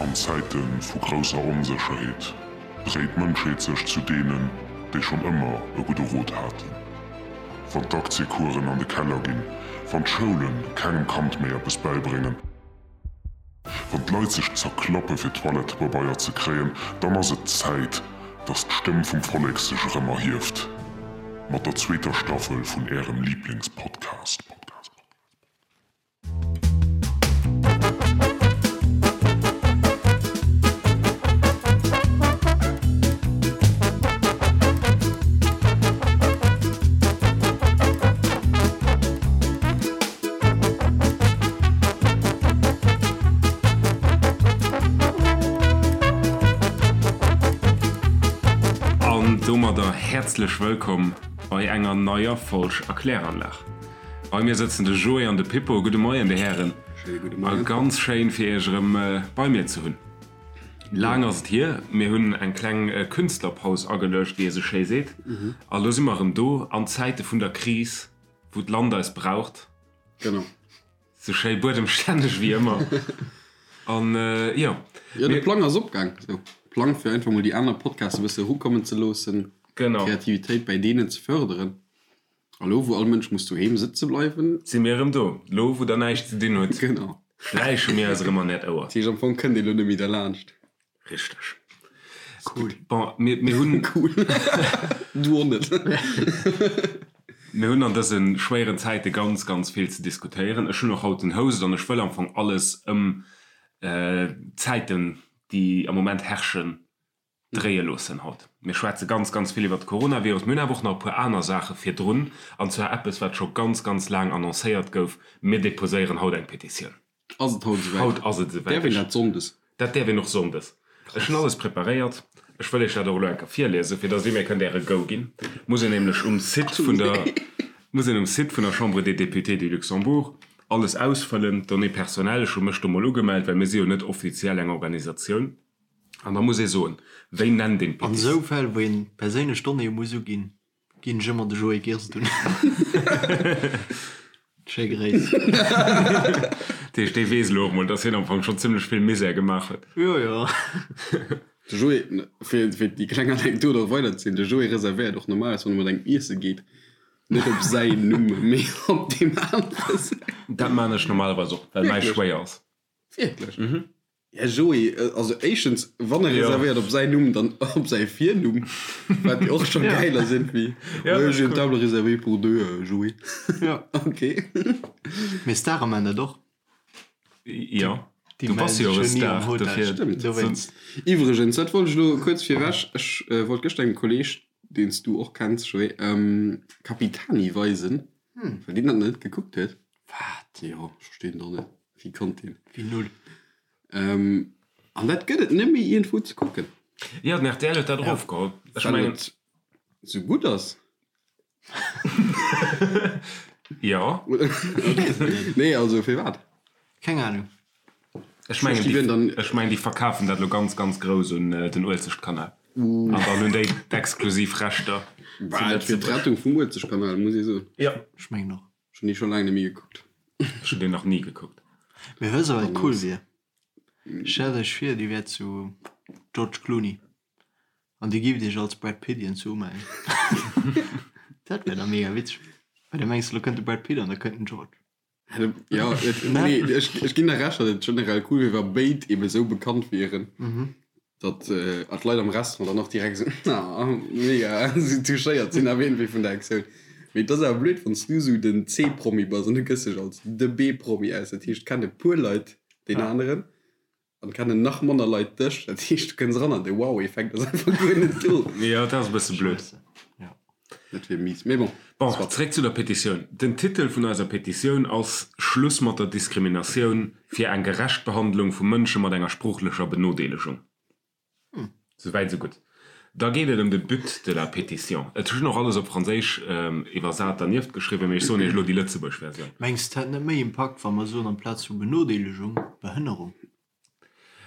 An Zäite vu grousser Onsécherheet dréit d'Mënschheet sech zu deenen, déi schonn ëmmer e gudde Rot haten. Wann d'Aktiecoursen an de Keller ginn, wann d'Schoule kengem Kand méi eppes bäibréngen, wann d'Leit sech zerklappe fir Toilettepabeier ze kréien, dann ass et Zäit, dass d'Stëmm vum Vollek sech erëm erhieft. Mat der zweeter Staffel vun Ärem Liiblingspodcast. An domadder häerzlech wëllkomm bei enger neier Folg Erkläranlag. Bei mir sëtzen de Joé an de Pippo. Gudde Moien, Dir Hären. Schéine gudde A Moien. ganz schéin, fir Iech erëm bei mir ze hunn. Laang ass et hier. Mir hunn eng kleng Künstlerpaus ageluecht, wéi ee sou schéi seet. A lo si mer erëm do an Zäite vun der Kris, wou d'Land eis braucht. Genau. Sou schéi buedemstänneg wéi ëmmer. An jo. Jo, de Plang ass opgaang. Sou, Plang fir einfach mol déi aner Podcasts e bësse erukommen ze loossen. Genau. D'Kreativitéit bäi deenen ze fërderen. A lo wou all Mënsch muss doheem sëtze bleiwen. Si mir erëm do. Lo wou der näischt ze dinn hutt. Genau. Schläiche mir eis erëm an äert Ouer. Dat heescht am Fong kënnt ee lo net méi derlaanscht. Richteg. Cool. Bon, mir, mir hunn. Cool. Du och net. Mir hunn an dëse schwéieren Zäite ganz, ganz vill ze diskutéieren. Ech hunn och haut den Host an ech wëll am Fong alles ëm d'Zäiten, déi am Moment herrschen, dréie loossen haut. Mir schwätze ganz, ganz vill iwwert de Coronavirus. Mir hunn awer och nach e puer aner Saache virdrun, an zwar eppes, wat scho ganz, ganz laang annoncéiert gouf, Mir deposéieren haut eng Petitioun. Ass et haut esouwäit? Haut ass et esouwäit. Däerf een dat sonndes? Dat däerf een och sonndes. Ech hunn alles preparéiert. Ech wëll Iech dat och elo eng Kéier virliesen, fir dass Dir mir kënnt Äre Go ginn. Muss een nämlech um Site vun der, muss een um Site vun der Chambre des Députés du Luxembourg alles ausfëllen, d'Données personnelles. Ech hu mech do mol ugemellt, well mir si jo net offiziell eng Organisatioun. An da muss ee soen, wéi nennt een An d'Pétitioun? esou Fäll, wou een perséinlech Donnéeë muss uginn, ginn ech ëmmer de Joé Girst un. Schéi Gréiss. Dat heescht, dee weess elo och mol, dass hien am Fong schonn zimmlech vill Misär gemaach huet. Jo, jo. De Joé, fir déi kleng Anekdot och weiderzezielen, de Joé reservéiert och normalerweis, wann e mat engem iesse geet, net op säin Numm, mee op deem anere säin. Dat maan ech normalerweis och, well mäi schwéier ass. Wierklech? Här Joé, also éischtens, wann e reservéiert op säin Numm, dann op säi Virnumm, wat jo och scho gäil ass iergendwéi. Ouais, j'ai une table réservée pour deux, Joé. Ok. Mee Stare man dat och. Jo, Déi du bass mellen jo sech e jo ni Star, am Hotel. dofir. Stëmmt. Dowéinst. Iwwregens, dat wollt ech elo kuerz virwech, ech wollt gëschter engem Kolleeg, deen s du och kenns, Joé, Capitani weisen, well deen dat nach net gekuckt huet. Wat? Jo, ech verstinn et och net. Wéi konnt deen? Wéi null. An dat gëtt et net méi iergendwou ze kucken. Jo, den rtl huet dat erofgeholl. Ech Well mengen. et sou gutt ass. Jo. Nee, also firwat? Keng Ahnung. Ech mengen, déi, ech mengen, déi verkafen dat elo ganz, ganz grouss un den Uelzechtkanal. An dann hunn déi d'exklusiv Rechter zu Bah, et wier Lëtzebuerg. d'Rettung vum Uelzechtkanal, muss ee soen. Jo. Ech mengen och. Ech hunn dee scho laang net méi gekuckt. Ech hunn deen nach ni gekuckt. Mee wëss der wat cool wier? Stellt iech vir dir wäert zu George Clooney an dir gift iech als Brad Pitt iergendwou umellen. Dat wär da mega witzeg. Well da mengs de lo kënnt de Brad Pitt an da kënnt den George. Jo, nee, ech, ech ginn der Recht, datt et generell cool wier, wa béid ebe sou bekannt wieren. Datt d'Leit am Restaurant dann och direkt esou, ah, mega, esou touchéiert sinn awer iergendwéi vun der Aktioun. Mee et ass awer blöd, wann s du esou den C-Promi bass an du gëss dech als de B-Promi aus. Dat heescht, et kennen e puer Leit deen aneren an et kennen nach manner Leit dech. Dat heescht, du kënns eran an de Wow-Effekt ass einfach guer net do. Jo, dat ass e bësse blöd. Dat wier mies. Mee bon, Bon, soit. zeréck zu der Petitioun. Den Titel vun eiser Petitioun ass Schluss mat der Diskriminatioun, fir eng gerecht Behandlung vu Mënsche mat enger sproochlecher Benodeelegung. Souwäit esou gutt. Da geet et ëm de But de la pétition. Et hunn och alles op Franséisch iwwersat dernieft geschriwwen, mee ech soen Iech elo déi lëtzebuergesch Versioun. Mengs de, et hätt net méi Impakt, wa mer soen, amplaz vu Benodeelegung, Behënnerung?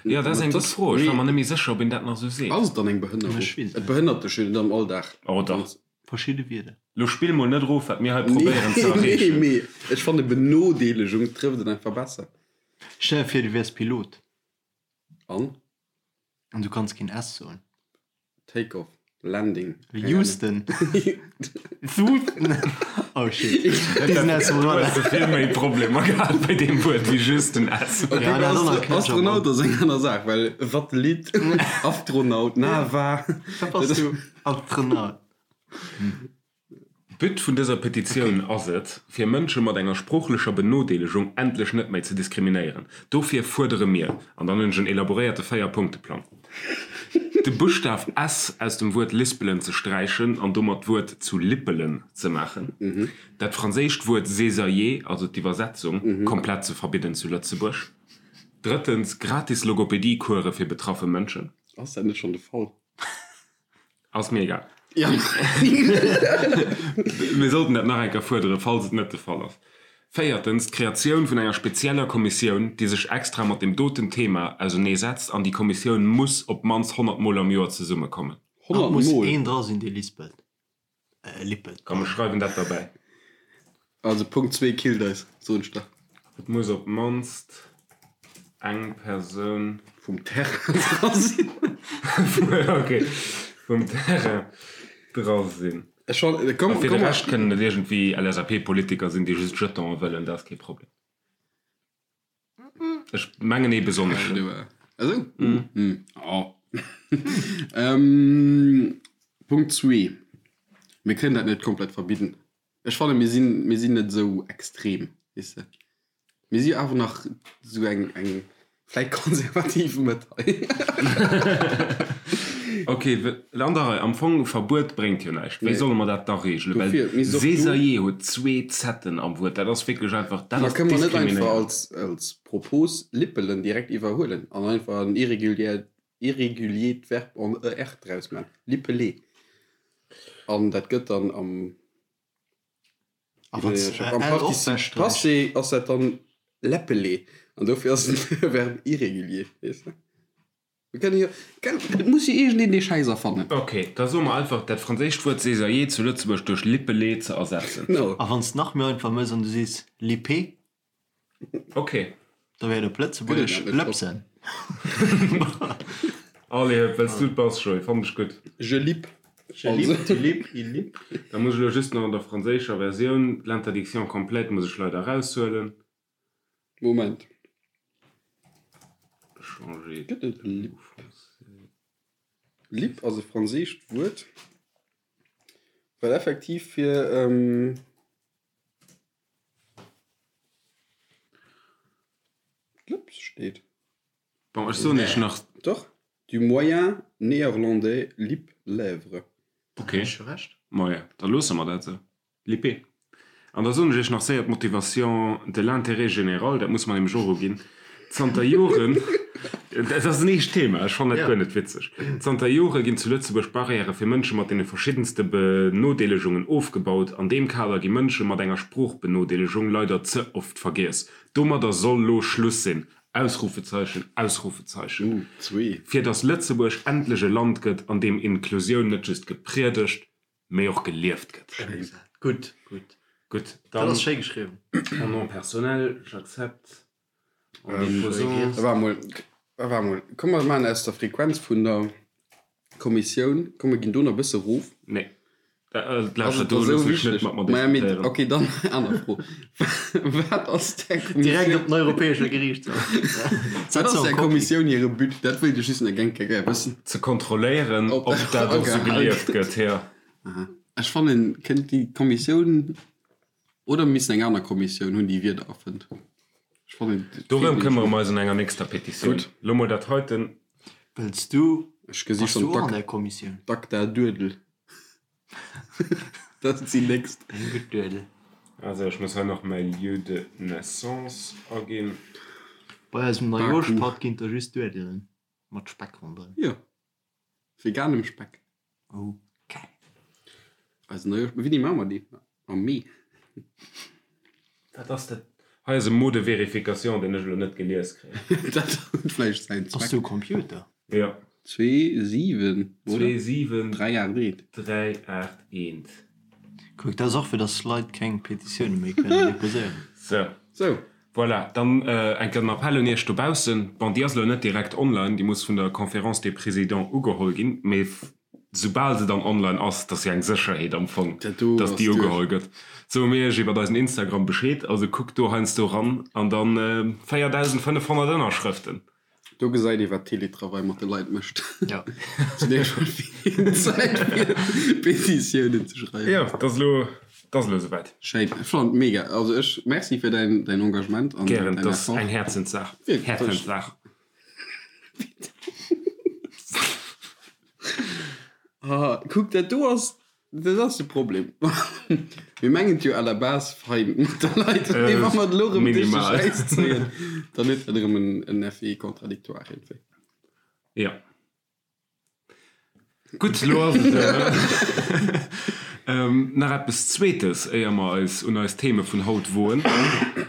Jo, dat ass eng gutt Fro. Ech war mer net méi sécher, ob een dat nach esou seet. Ass et dann eng Behënnerung? Ech weess et Et net. behënnert dech jo net am Alldag. Oh dach. Verschidde Wierder. Lo spill mol net erof, wat mir hei probéieren ze Nee, erreechen. mee ech fanne Benodeelegung trëfft et einfach besser. Stell der vir, du wäers Pilot. An? An du kanns keen S soen. Take off, Landing. Houston. Houston. Oh shit. Déi sinn aus dem Du hues vill méi Problemer gehat bei deem Wuert wéi just den S. Okay, Ja, dat ass Astro Astronaut ass eng aner Saach, well Satellit, Astronaut, Nava. Wat bass du? Astronaut. But vun dëser Petitioun ass et, fir Mënsche mat enger sproochlecher Benodeelegung endlech net méi ze diskriminéieren. Dofir fuerdere mir, an dann hunn ech en elaboréierte Véierpunkte-Plang, de Buschtaf s aus dem Wuert lispelen ze sträichen an domat d'Wuert zu lippelen ze maachen, dat franséischt Wuert césailler, also d'Iwwersetzung, komplett ze verbidden zu Lëtzebuerg, drëttens, gratis Logopedie-Course fir betraffe Mënschen. Ass dat net schonn de Fall? Ass mir egal. Mir sollten dat nach eng Kéier fuerderen, falls et net de Fall ass. Véiertens, d'Kreatioun vun enger spezieller Kommissioun, déi sech extra mat deem doten Thema auserneesetzt. An déi Kommissioun muss op d'mannst 100 Mol am Joer zesummekommen. 100 Mol? Muss een dra sinn, dee lispelt. Lippelt. Komm, ech schreiwen dat derbäi. Also Punkt zwee killt eis, soen ech der. Et muss op d'mannst eng Persoun. Vum Terrain dra sinn. Ok, vum Terrain dra sinn. Ech fannen, komm, A fir de Rescht kënnen et iergendwéi LSAP-Politiker sinn, déi just Jetonen wëllen, dat ass kee Problem. Ech mengen ee besonneschen. Esou? Oh. Punkt zwee, Mir kënnen dat net komplett verbidden. Ech fannen, mir sinn, mir sinn net esou extrem, weess de. Mir si jo awer nach esou eng, eng vläicht konservativ Mëtt hei. Ok, an der Rei. Am Fong, Verbuet bréngt jo näischt. Wéi solle mer dat da reegelen? Well Dofir misst och do. Césailler huet zwee Z'en am Wuert. Dat ass wierklech einfach, dat Ma ass kënne mer net einfach diskriminéierend. als, als Propos lippelen direkt iwwerhuelen an einfach en irrégulier, irréguliert Verb en er draus man? Lippeler. An dat gëtt dann am, A wann s de am L och Participe wechsträichs? passé ass dat dann leppeler. An dofir ass et e Verbe irrégulier, weess de? Mir kënne jo, et muss jo iergendeen dee Schäiss erfannen. Ok, da soe mer einfach, dat franséischt Wuert césailler zu Lëtzebuerg duerch lippeler ze ersetzen. Genau. A wann s de nach méi einfach mëss an du sees lippé. Ok. Da wär et op Lëtzebuergesch lëpsen. Allez hëpp, well s du et bass, Joé, fannen ech gutt. Je lippe. Je lippe, tu lippes, il lippe. Da muss ech elo just nach an der franséischer Versioun l'interdiction complète muss ech leider eraushuelen. Moment. Changer Gëtt et de Lipp? mot français. Lipp ass e franséischt Wuert, wat effektiv fir d'Lëps steet. Bon, ech soen iech nach. Doch, du moyen néerlandais lip, lèvre. Ok, maja, da loosse mer dat esou. Lippé. An da soen ech iech nach séier d'Motivation de l'intérêt général, dat muss mer nämlech och uginn. Zanter Joren, dat ass en eescht Thema, ech fannen dat guer net witzeg, zanter Jore ginn zu Lëtzebuerg Barrièrë fir Mënsche mat deene verschiddenste Benodeelegungen ofgebaut. An deem Kader gi Mënsche mat enger Sproochbenodeelegung leider ze oft vergiess. Domadder soll lo Schluss sinn! Ausrufezeichen, Ausrufezeichen. Fir datt Lëtzebuerg endlech e Land gëtt, an deem Inklusioun net just gepriedegt, mee och gelieft gëtt. Schéi gesat. Gutt, gutt. Gutt, Dat dann ass schéi geschriwwen. en nom personnel, j'accepte en déposant. Waart mol, waart mol, komm mer maachen aus der Frequenz vun der Kommissioun, komm mer ginn do nach e bësse rof. Nee, Ass lauschter, et do da sou loossen ech net wichteg? mat mer Maja, mee diskutéieren. okay, dann aner Fro, Wat ass där Direkt Kommissioun, op den Europäesche Geriichtshaff. wat ass där Kommissioun hire But? Dat wéilt ech just nach geng gär wëssen. Ze kontrolléieren, Ob ob dat dat och sou agehal gelieft gëtt. gëtt, jo. Aha. Ech fannen, kënnt déi Kommissioun, oder mir missen eng aner Kommissioun hunn, déi Wierder erfënnt. Ech fannen, et feelt Dorëm nämlech këmmere nach. mer eis an enger nächster Petitioun. Gutt. Lo mol dat heiten. Wëlls du, Ech gesi bass schonn du och an d'Ak, där Kommissioun? d'Acta Duedel. Dat ass déi nächst. Eng gutt Duedel. Also ech muss hei nach mäi Lieu de naissance aginn. Bei eisem Baku. Neijooschpatt ginn et da just Duedelen mat Speck ronderëm. Jo. Veganem Speck. Oh geil. Eisen Neijooschpatt, wéini maache mer dee? Am Mee. Wat ass dat? Hei ass e Mot de vérification, deen ech elo net gelies kréien. Dat huet vläicht säin Bass Zweck. du e Computer? Jo. 2, 7, oder? 2, 7, 3, 8, 1. 3, 8, 1. Kuck, dat ass och fir dass Leit keng Petitioune méi kënnen deposéieren. Sou. Sou. Voilà, dann eng Kéier den Appell un Iech dobaussen. Bon, déi ass elo net direkt online, déi muss vun der Conférence des Présidents ugeholl ginn, mee soubal se dann online ass, dat ass jo eng Sécherheet am Fong, dass déi ugeholl gëtt, soe mir Iech iwwert eisen Instagram Bescheed. Also kuckt do heiansdo ran an dann 4.500 Ënnerschrëften. Do gesäit ee wat Teletravail mat de Leit mécht. Ja. Zu där schon vill Zäit fir Petitiounen ze schreiwen. Jo, dat ass elo, dat ass elo esouwäit. Schéin. Ech fannen et mega. Also ech, merci fir däin, däin Engagement an Gären, däin dat ass Effort. eng Häerzenssaach. Wierklech. Häerzenssaach. Ah, kuck, dat do ass Dat ass de Problem. Mir mengen et jo à la base fein mat de Leit, mee wa mer et elo erëm duerch de Schäiss zéien, dann huet dat erëm en Effet contradictoire iergendwéi. Jo. Gutt, elo ass et nach eppes Zweetes, éier mer eis un eis Theme vun haut woen.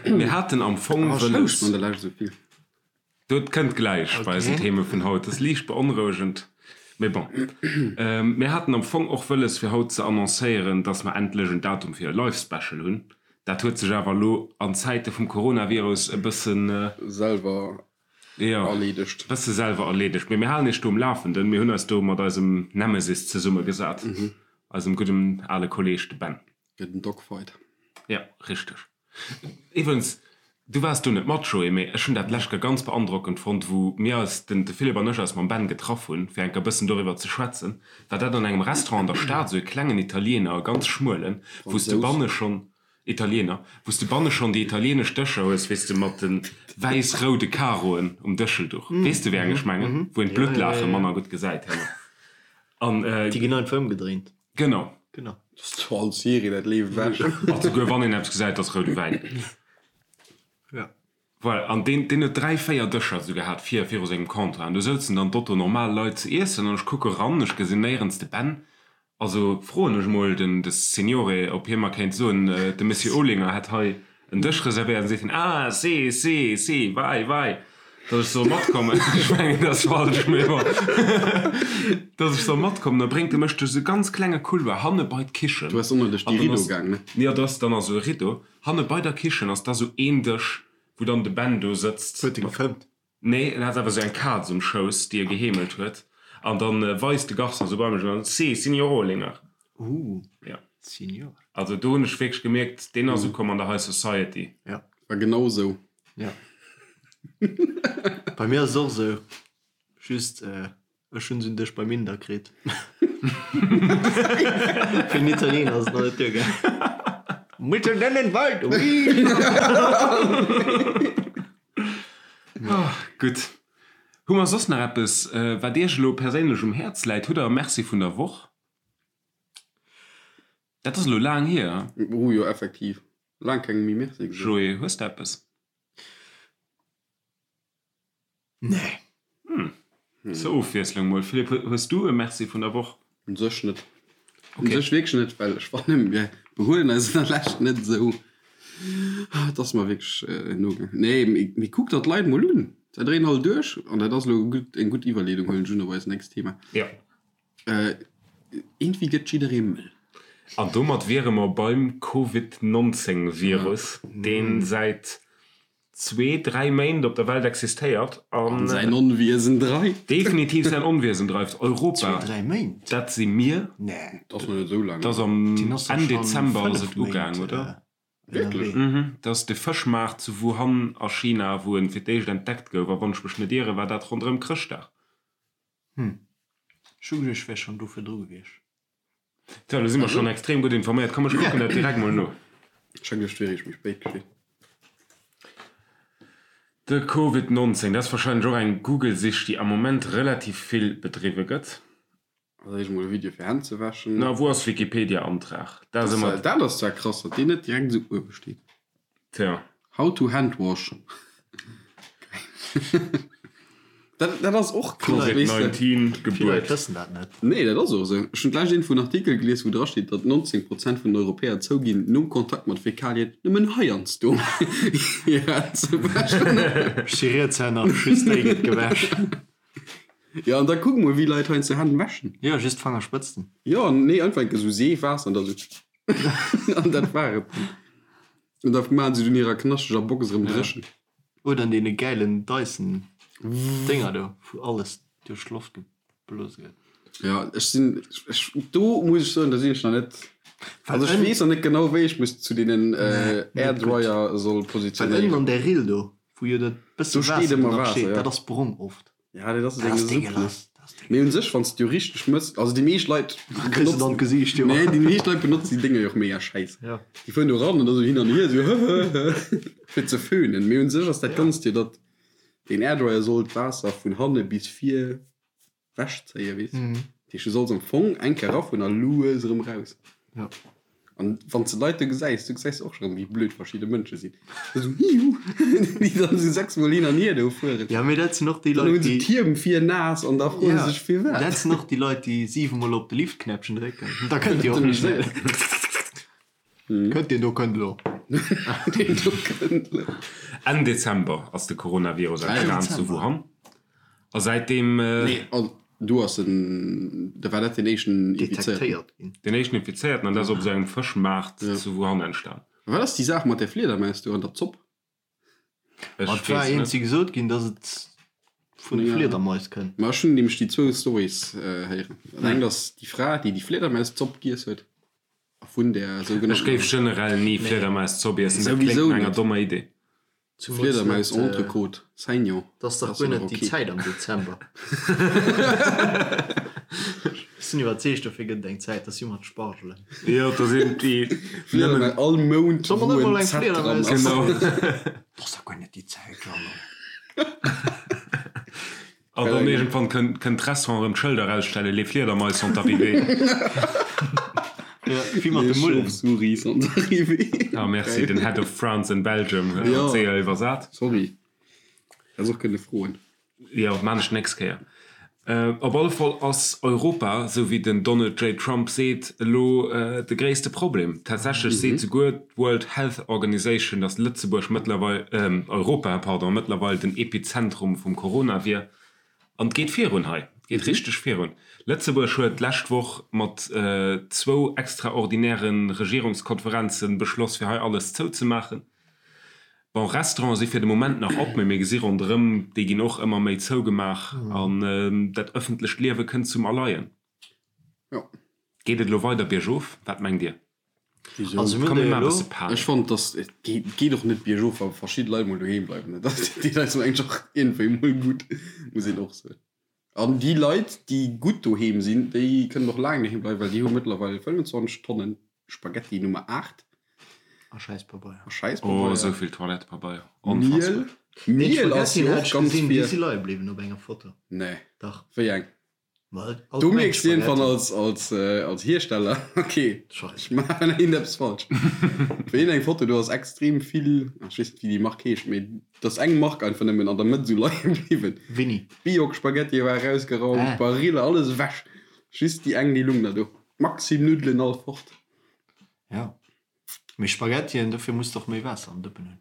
Mir haten am Fong wëlles. Ech houscht an der Lescht esou vill. Dat kënnt gläich bei eisen Theme vun haut. Dat ass liicht beonrouegend, mee bon. Mir haten am Fong och wëlles fir haut ze annoncéieren, dass mer endlech en Datum fir e Live Special hunn. Dat huet sech awer elo an Zäite vum Coronavirus e bëssen. Selwer erleedegt. Jo, bësse selwer erleedegt. Mee mir halen iech do um Lafenden. Mir hunn eis do mat eisem Nemesis zesummegesat, eisem gudden ale Kolleeg, de Ben. Fir den Dogfight. Jo, richteg. Iwwregens, du waars do net mat, Joé, mee ech hunn dat d'lescht Kéier ganz beandrockend fonnt, wou mir eis, den de Philippe an ech, eis mam Ben getraff hunn, fir eng Kéier e bëssen doriwwer ze schwätzen, war dat an engem Restaurant an der Stad, esou e klengen Italiener, e ganz schmuelen, wou s de banne schonn, Italiener, wou s de banne schonn déi italienesch Dëscher hues, weess de, mat de wäiss-roude Karoen um Dëschelduch. Weess de, wéi eng ech mengen? Wou een d'Bluttlaache manner gutt gesäit herno. An. Déi ginn einfach ëmgedréint. Genau. Genau. Dat ass zwar all Serie, dat leeft ewech. Ach, souguer wann een eppes gesäit, ass roude Wäin. Ja. Voilà, an deen, deen huet 3, 4 Dëscher esou gehat vir, viru sengem Comptoir. An do souzen dann d'Otto normal Leit ze iessen an ech kucke ran, ech gesinn néierens de Ben. Also froen ech mol den, de Signore, ob hie mer kéint soen, de Monsieur Olinger hätt hei en Dësch reservéiert. An seet hien, Ah, si, si, si, vai, vai. Dass ech soll matkommen. Ech mengen, dat ass falsch, mee bon. Dass ech soll matkommen. Da bréngt e mech duerch esou e ganz klenge Couloir hanne bei d'Kichen. Du bass ënner duerch déi Rideau gaang, ne? Jo, do ass dann esou e Rideau. Hanne bei der Kichen ass da sou een Dësch, wou dann de Ben do sëtzt. Huet e gefëmmt? Nee, en hat awer sou eng Kaz um Schouss, déi e geheemelt huet. An dann weist de Garçon sou bei mech an dann, Si, Signor Olinger. Ooh, ja. Signor. Also do hunn ech wierklech gemierkt, deen ass ukomm an der High Society. Ja. War genau sou. Ja. Bei mir ass et och esou, just ech hunn se un Dësch beim Inder kritt. Fir den Italiener ass et nach net duergaangen. Mitten in den Wald, ui! Gutt. Hu mer soss nach eppes, wat Iech elo perséinlech um Häerz läit? Hutt Der e Merci vun der Woch? Dat ass elo laang hier. Oh jo, effektiv. Laang kengem méi Merci gesot. Joé, hues de eppes? Nee. Hm. Zur Ofwiesslung mol. Philippe, hues du e Merci vun der Woch? Un sech net. Un sech wierklech net, well ech fannen, mir behuelen eis an der Lescht net esou. Et ass mer wierklech nogaangen. Nee, mee kuck der d'Leit mol un. Se dréinen all duerch. An dat ass elo eng gutt Iwwerleedung, huelen ech un, op eist nächst Thema. Jo. Iergendwéi gëtt jidderee mëll. An domat wiere mer beim Covid 19 Virus, dee säit zwee, dräi Méint op der Welt existéiert an säin Onwiesen dreift. Definitiv säin Onwiesen dreift. Europa, Zwee, dräi Méint? dat si mir. Nee. Dat ass nach net esou laang. Dat ass am Enn Dezember ass et ugaang, oder? Wierklech? Mhm. Dat ass de Fëschmaart zu Wuhan a China, wou en fir d'éischt entdeckt gouf. A wann ech mech net ieren, war dat ronderëm Chrëschtdag. Hm. Ech hu geduecht, ech wär schonn do virdru gewiescht. Tja, lo si mer schonn extrem gutt informéiert. Komm, ech kucken dat direkt mol no. Ech hu geduecht, et wier eréischt méi spéit geschitt. De Covid 19, dat ass warscheinlech och eng Google-Sich, déi am Moment relativ vill bedriwwe gëtt. Als éischt mol e Video fir Hänn ze wäschen. Na, wou ass Wikipedia-Antrag? Dat ass ëmmer. Dat ass zwar krass, datt deen net direkt esou uewe steet. Tja. How to hand wash. Dat, dat ass och krass, weess de. Covid-19 Gebuert. Vill Leit wëssen dat net. Nee, dat ass och esou. Ech hunn d'lescht iergendwou en Artikel gelies, wou drasteet, datt 19 Prozent vun den Europäer zouginn, nom Kontakt mat Fäkalien nëmmen heiansdo hir Hänn ze wäschen. Ech si Rietshänner, just déi gëtt gewäsch. Jo, an da kuck mol, wéi Leit heiansdo Hänn wäschen. Jo, just d'Fangerspëtzten. Jo, nee, einfach enke sou Seef, Waasser an da sou. An dat war et dann. An da maachen se dunn hirer knascheger Box erëm dréchen. Oder an deene gäilen Dyson Dénger do, wou alles duerch d'Loft geblose gëtt. Jo, ech sinn, ech, do muss ech soen, do sinn ech nach net, also ech weess nach net genau, wéi ech mech zu deenen Airdryer soll positionéieren. Well ënnen an där Rill do, wou jo dat bësse Waasser do nach steet, dat ass brong oft. Ja, dat ass eng Supp, ne? Mee un sech, wann s de jo richteg mëss, also déi meescht Leit benotzen, Gesiicht, jo. Nee, déi meescht Leit benotzen déi Dénger jo och mega schäiss. Ja. Déi fueren do ran an da sou hin an hier, sou hëhëhë, fir ze föhnen. Mee un sech ass dat Ganzt jo, datt deen Airdryer soll d'Waasser vun hanne bis vir wechzéien, weess. Dat heescht, du solls am Fong eng Kéier erafueren a lues erëm raus. Ja. An wann s de Leit do gesäis, du gesäis och scho rëm, wéi blöd verschidde Mënsche sinn. Esou hiu, déi dann esou sechsmol hin an hier do fueren. Ja, mee dat sinn och déi Leit, déi. Dann hu se d'Hiem vir naass an da froe se sech firwat. Dat sinn och déi Leit, déi siwemol op de Liftknäppchen drécken. Da kënnt Dir och méi schnell. Kënnt deen do kënnt elo. Deen do kënnt elo. Enn Dezember ass de Coronavirus entstan zu Wuhan. A säitdeem. Nee, also do ass en, da war dat deen éischten Infizéierten. Detektéiert ginn. Deen éischten Infizéierten, an dat ass op esou engem Fëschmaart zu Wuhan entstan. Wat ass déi Saach mat där Fliedermaus do an der Zopp? Ech Ma et war weess net. eenzi gesot ginn, datt et vun de Fliedermais kënnt. Ma ech hunn nämlech déi zwou Storys héieren. Dat engt ass déi Fra, déi déi Fliedermauszopp giess huet a vun där Ech géif sougenanntener. generell ni Fliedermauszopp iessen, dat kléngt Souwisou no enger net. dommer Idee. Fliedermaus Entrecôte Saignon. Dat ass dach guer net déi Zäit am Dezember. Ech sinn iwwerzeegt, dofir gëtt et eng Zäit, dat si mat Spargelen. Jo, da sinn déi nëmmen. All Mount Soll mer wou net mol en eng Z dran Fliedermaus ass. Genau. Dat ass dach guer net déi Zäit, Jeannot. An dann iergendwann kënnt d'Restaurant erëm d'Schëlder erausstellen, Les Fliedermais sont arrivées. Ja, wéi mat de Les Mullen. chauves-souris sont arrivées. Ah merci, den Head of France and Belgium huet Jo. dat séier iwwersat. Sorry, häss och kënne froen. Jo, maan ech d'nächst Kéier. Op alle Fall ass Europa, esou wéi den Donald J. Trump seet, elo de gréisste Problem. Tatsächlech seet souguer d'World Health Organization, datt Lëtzebuerg mëttlerweil, Europa, pardon, mëttlerweil den Epizentrum vum Corona wier. An et geet virun hei, et geet richteg virun. Lëtzebuerg huet d'lescht Woch mat zwou extraordinäre Regierungskonferenze beschloss, fir hei alles zouzemaachen. Bon, Restaurante si fir de Moment nach op, mee mir gesi ronderëm, déi ginn och ëmmer méi zougemaach an dat ëffentlecht Liewe kënnt zum Erleien. Jo. Geet et elo weider biergof? Wat mengt Dir? Wisou? Also mir Komm, hunn mir der maachen e jo bësse elo. Panik. Ech fonnt, dass et geet, geet och net biergof, wa verschidde Leit mol doheem bleiwen. Dat deet eis mengen ech och iergendwéi mol gutt, muss een och soen. An déi Leit, déi gutt doheem sinn, déi kënnen och laang doheem bleiwen, well déi hu mëttlerweil 25 Tonnen Spaghetti Nummer 8. A Schäisspabeier. A Schäisspabeier. Oh, esou vill Toilettepabeier. Miel. Onfassbar. Miel ass jo och ganz Déi vir. si leie bliwwen op enger Foto. Nee. Dach. Wéi eng? Ma all Do d'Mengt mierks de iergendwann Spaghetti. als, als, als Hiersteller, okay, Scheiss. ech maachen iergendeppes falsch. Wéi eng Foto, do ass extrem vill, ech weess net wéi déi Mark heescht, mee do ass eng Mark einfach nëmmen an der Mëtt esou leie bliwwen. Winni. D'Biok-Spaghettie war erausgeraumt, Ah. d'Barilla, alles ewech. Just déi eng, déi lung nach do. Maxim Nuddelen all fort. Ja. Mee Spaghettien, dofir muss de och méi Waasser am Dëppen hunn.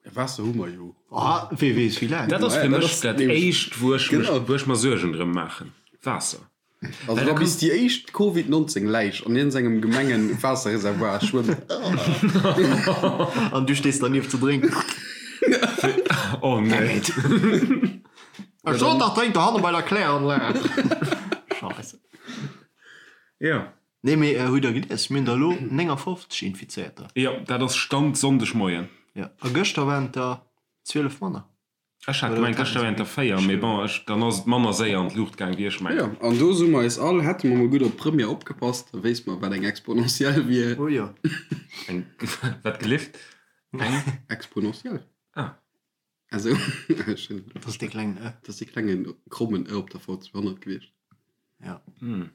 Ja, Waasser hu mer jo. Ah, wee weess wéi laang. Dat ass fir Dat mech ass dat nämlech- éischt, wou ech mech, Genau. wou ech mer Suergen drëm maachen. Waasser. Also Well wa da bis déi éischt Covid 19 Läich an iergendengem Gemengen-Waasserreservoir schwëmmt. An du stees dernieft ze drénken. Oh nee. Ech sot dach, drénk dohanne bei der Kläranlag. Scheisse. Jo. Nee, mee hutt der gelies, mir hunn der elo 59 Infizéierter. Jo, dat ass Stand Sonndegmoien. Jo, a gëschter waren et der 12 manner. Ech hat gemengt, gëschter wären et der 4, mee bon, ech, dann ass et manner séier an d'Luucht gaang, wéi ech mengen. Jo, an do soe mer eis all, hätte mer mol gutt op d'Première opgepasst, da wéisst mer, wat eng Exponentiell wier. Oh jo. Eng, wat gelift? Eng? Exponentiell. Ah. Also, ech hunn. Dat ass dee klengen Ë. Dat ass dee klengen krommen Ë op der V200 gewiescht. Ja. Hm.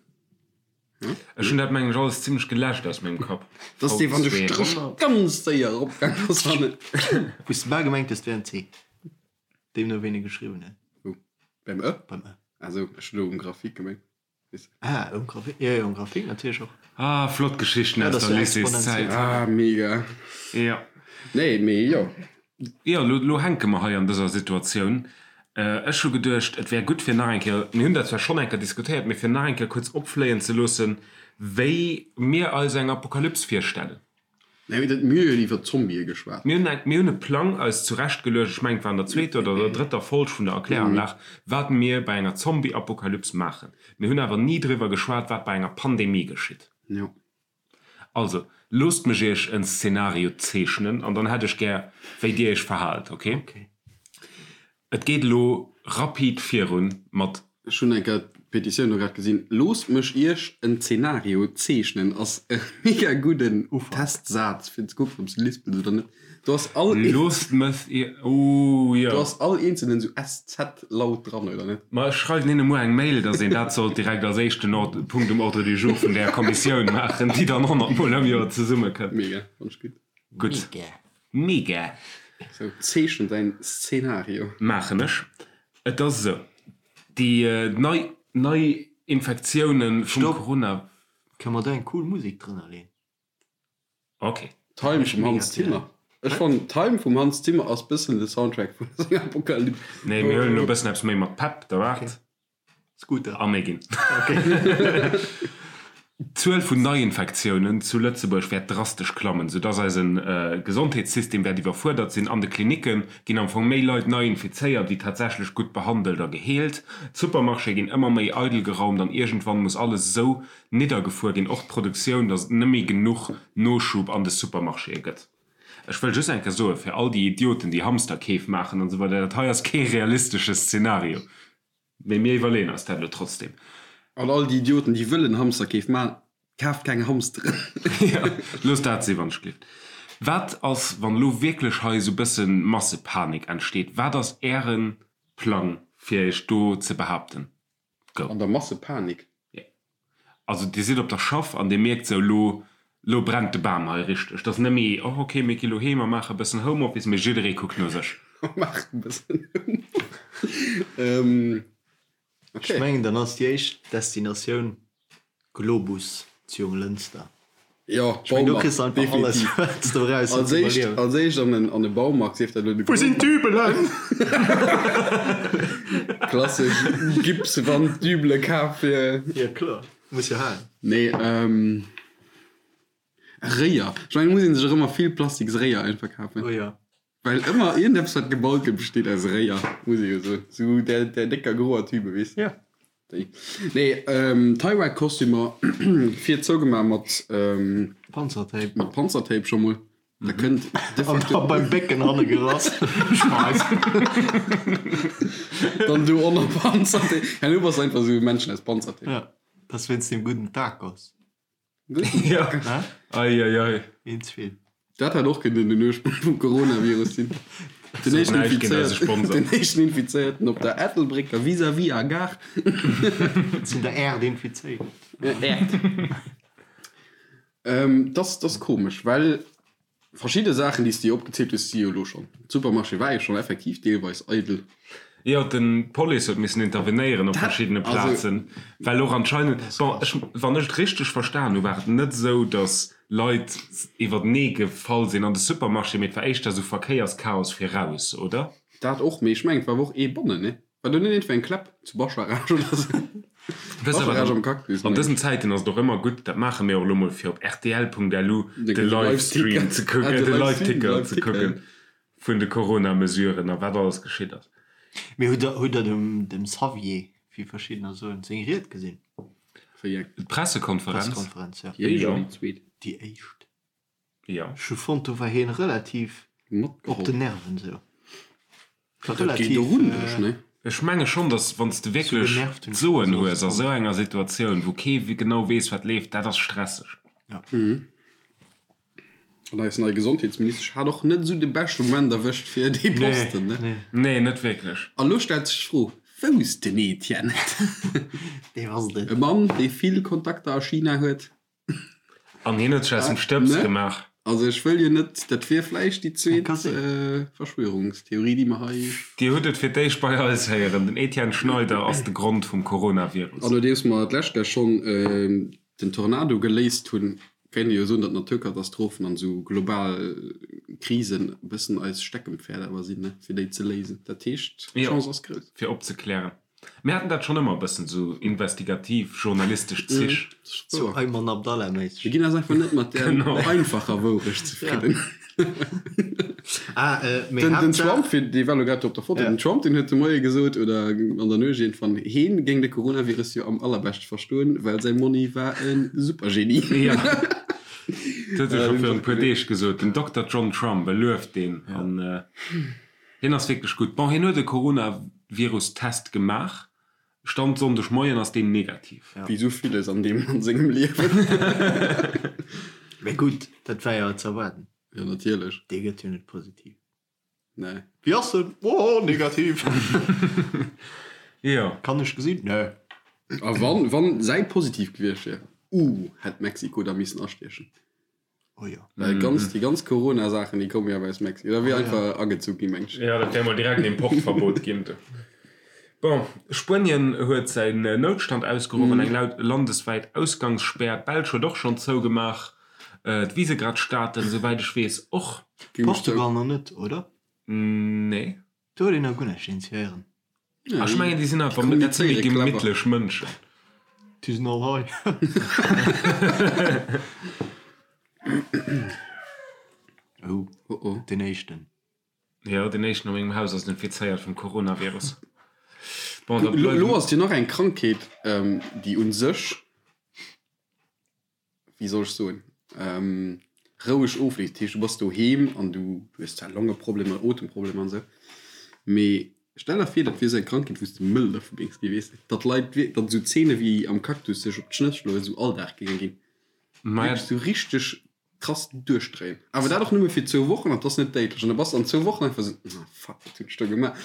Ech hunn dat mengen ech alles zimlech geläscht aus mengem Kapp. Dat ass dee wann de Stréch ganz séier eropgaang ass an et. Wou s de bal gemengt hues, et wär en C. Deemno wéi en e geschriwwen huet. Wou? Beim Ë? Beim Ë. Ah sou, ech hunn elo um Grafik gemengt. Ah, um Grafik, jo, jo, um Grafik natierlech och. Ah, flott Geschichten aus der Lycéeszäit. Ah, mega. Jo. Nee, mee jo. Jo, lo, lo hänke mer hei an dëser Situatioun. Ech hu geduecht, et wär gutt fir nach eng Kéier, mir hunn dat zwar schonn eng Kéier diskutéiert, mee fir nach eng Kéier kuerz opfléien ze loossen, wéi mir eis eng Apokalyps virstellen. Nee, mee dat, mir hu jo iwwer Zombië geschwat. Mir hunn eng, mir hunn e Plang eis zurechtgeluecht, ech mengen, et war an der zweeter oder der drëtter Folg vun der Erkläranlag, wat mir bei enger Zombie-Apokalyps maachen. Mir hunn awer ni driwwer geschwat, wat bei enger Pandemie geschitt. Jo. Also, loosst mech iech en Szenario zeechnen an dann hätt ech gär, wéi dir iech verhaalt, ok? Et geet elo rapid virun mat. Ech hunn eng Kéier d'Petitioun do grad gesinn. Loosst mech iech en Zenario zeechnen ass e mega gudden Testsaz fir ze kucken, ob s de lispels oder net. Do ass all. Loosst mech iech, ooh jo. Do ass all eenzelen esou SZ-Laut dran, oder net? Ma ech schreiwen hinne muer eng Mail, dass een dat sollt direkt als éischten Punkt um Ordre du jour vun där Kommissioun maachen, déi dann 100 Mol am Joer zesummekënnt. Mega, fannt ech gutt. Gutt. Mega! Sou, zeechen däin Szenario. Maachen ech. Et ass esou, déi nei nei Infektiounen vum Stopp! Corona. Kënne mer do eng cool Musek drënner leen? Ok. Time vum Hans Zimmer. Ech fannen Time vum Hans Zimmer ass bëssen de Soundtrack vun senger Apokalypse. Nee, mir huelen elo bëssen eppes méi mat Pepp, da waart. Scooter. A méi ginn. D'Zuel vun Neiinfektiounen zu Lëtzebuerg wäert drastesch klammen, soudass eise Gesondheetssystem wäert iwwerfuerdert sinn. An de Klinicke ginn am Fong méi Leit nei infizéiert, wéi tatsächlech gutt behandelt a geheelt. D'Supermarchéë ginn ëmmer méi eidel geraumt an iergendwann muss alles esou niddergefuer ginn, och d'Produktioun, datt et net méi genuch Noschub an de Supermarchéë gëtt. Ech wëll just eng Kéier soen, fir all déi Idioten, déi Hamsterkeef maachen an esou weider, dat hei ass kee realistesche Szenario. Mee mir iwwerleeën eis dat elo trotzdem. An all déi Idioten, déi wëllen Hamsterkeef maachen, kaaft keng Hamsteren. Jo, loosst dat sinn, wann ech gleeft. Wat ass, wann elo wierklech hei esou bësse Massepanik entsteet? Wat ass Äre Plang, fir Iech do ze behaapten? Go. An der Massepanik? Jo. Also Dir sidd op der Schaff an Dir mierkt sou, elo, elo brennt de Bam hei richteg. Et ass net méi, oh ok, mir gi lo heem a maache e bëssen Homeoffice, mee jidderee kuckt no sech. Maachen e bëssen Homeoffice. Ok. Ech mengen, dann ass déi éischt Destinatioun Globus zu Jonglënster. Jo, Ech mengen, do Baumarkt, kriss de einfach alles, definitiv. wat s de brauchs fir Als ze éischt, iwwerliewen. als éischt an en, an e Baumarkt, sief dat elo de Wou sinn Globus. d'Dübelen? Klassesch Gipswand-Dübele kaf fir. Jo, kloer, muss jo halen. Nee, ähm, Réier. Ech mengen, et muss ee sech och ëmmer vill plastiks Réier einfach kafen. Oh jo. Well ëmmer iergendeppes wat gebaut gëtt besteet aus Réier, muss ee jo soen. Sou där, där décker groer Tübe, weess de. Jo. Déi. Nee, Tie-Ride-Kostümer vir zougemaach mat. Panzertape. Mat Panzertape scho mol. Da kënnt de An facto. da beim Bécken hanne gerass. Schmeiss. Dann do ënner Panzertape. Herno bass de einfach sou e Männchen aus Panzertape. Ja, dat ass wéinst deem gudden Tacos. Ja. Ei, ei, ei. Een ze vill. Dat hätt och kënnen den Ursprong vum Coronavirus sinn. Den éischten Näischt géint eise Infizéierten, Sponsor. den éischten Infizéierten op der Ettelbrécker vis-à-vis a Gare. Sinn der Äerd infizéiert. Äerd. Ähm, dat ass komesch, well Verschidde Saachen, déi s de jo opgezielt hues, si jo elo schonn. Supermarché war jo schonn effektiv deelweis eidel. Jo, den d'Police huet missen intervenéieren op verschiddene Plazen, well och anscheinend, bon, ech, wann ech et richteg verstan hu, war et net esou, datt Leit iwwertenee gefall sinn an de Supermarché, mee et war éischter esou Verkéierschaos fir raus, oder? Dat och, mee ech mengen, et war awer och ee bannen, ne? War do net iergendwéi eng Kläpp zu Bascharage oder sou? Wëss awer, Bascharage am Cactus, an mengen dësen ech. Zäiten ass et och ëmmer gutt, dat maache mir och elo mol, fir op rtl.lu De de Livestream Live-Ticker. ze Ah, kucken, de de Livestream, Live-Ticker ze Live-Ticker, kucken ja. vun de Corona-Mesuren a wat alles geschitt ass. Mee hutt der, hutt der dem, dem Xavier, wéi verschiddener soen, seng Ried gesinn? Wéi eng? D'Pressekonferenz? D'Pressekonferenz, ja. Déi éischt oder déi zweet? Déi éischt. Jo. Ech hu fonnt, do war hien relativ op den Nerven sou. War Dat geet relativ. och un dech, ne? Ech menge schonn, datt wann s de Sou wierklech genervt hunn ech d'Soen mech hues a fonnt. sou enger Situatioun, wou kee genau weess, wat leeft, dat ass stresseg. Ja. An eis nei Gesondheetsministesch hat och net esou de beschte Moment erwëscht fir dee Posten, ne? Nee. Nee, net wierklech. A lo stellt sech d'Fro, Wou ass den Etienne? Dee ass et net. E Mann, dee vill Kontakter a China huet. An hien huet sech aus dem Stëbs gemaach. Also ech wëll jo net, dat wier vläicht déi zweet Verschwörungstheorie, déi mer hei. Dir hutt et fir d'éischt bei eis héieren, Den Etienne Schneider ass de Grond vum Coronavirus. An nodeems mer d'lescht Kéier schonn den Tornado geléist hunn, kéint ee jo soen, datt Naturkatastrophen an esou global Krisen e bëssen eis Steckenpferd awer sinn, ne, fir déi ze léisen. Dat heescht, d'Chance ass grouss. Fir opzeklären. Mir haten dat schonn ëmmer e bëssen, sou investigativ journalistesch Zich. Sou Ayman Abdallah méisseg. Mir ginn eis einfach net mat där einfacher Wourecht zefridden. Ah, mee Den, den Trump, fir dee war elo grad do op der Foto, den Trump, deen huet de Moie gesot, oder an der Nuecht iergendwann, heen géing de Coronavirus jo am allerbeschte verstoen, well säi Monni war e Supergenie. Jo, dat huet e scho virun e puer Deeg gesot, den Dokter John Trump, e lueft deen. An hien ass wierklech gutt. Bon, hien huet e Coronavirus-Test gemaach, Stand Sonndeg Moien ass deen negativ. Wéi sou villes an deem Mann sengem Liewen. Mee gutt, dat war jo ze erwaarden. Jo, natierlech. Dee gëtt jo net positiv. Nee. Wéi ass en? Oh, negativ. Jo. Kann ech gesinn? Nee. A wann, wann säi positiv gewiescht wier, uh, hätt Mexiko da missen astiechen. Oh jo. Well ganz, déi ganz Corona-Saachen, déi komme jo awer aus Mexiko. Da wier einfach agezu ginn, meng ech. Jo, dat wär mol direkt en Importverbot ginn. Bon, Spuenien huet säin Noutstand ausgeruff an eng laut landeswäit Ausgangsspär. D'Belsch huet och schonn zougemaach. D'Visegrad-Staaten, souwäit ech weess, och. Portugal nach net, oder? Nee. Do huet een nach guer näischt initiéieren. Ech mengen déi sinn einfach, dat si méi gemittlech Mënschen. Déi sinn all hei. Oh, den éischten. Jo, den éischten a mengem Haus ass infizéiert vum Coronavirus. Bon, da bleiwen. Elo ass jo nach eng Krankheet, déi un sech. wéi soll ech soen, roueg ofleeft. Dat heescht, du bass doheem an du hues zwar Longeproblemer, Otemproblemer an esou, mee stell der vir, dat wier esou eng Krankheet, wou s de mëll dervu géings ginn, weess de, datt Leit, datt esou Zeene wéi am Cactus sech op d'Schnëss schloen, esou Alldag géinge ginn. Wierklech esou richteg krass duerchdréien. Awer dat och nëmme fir zwou Wochen an 't ass net déidlech. An da bass de an zwou Wochen einfach esou, ah fuck, wat hunn ech do gemaach?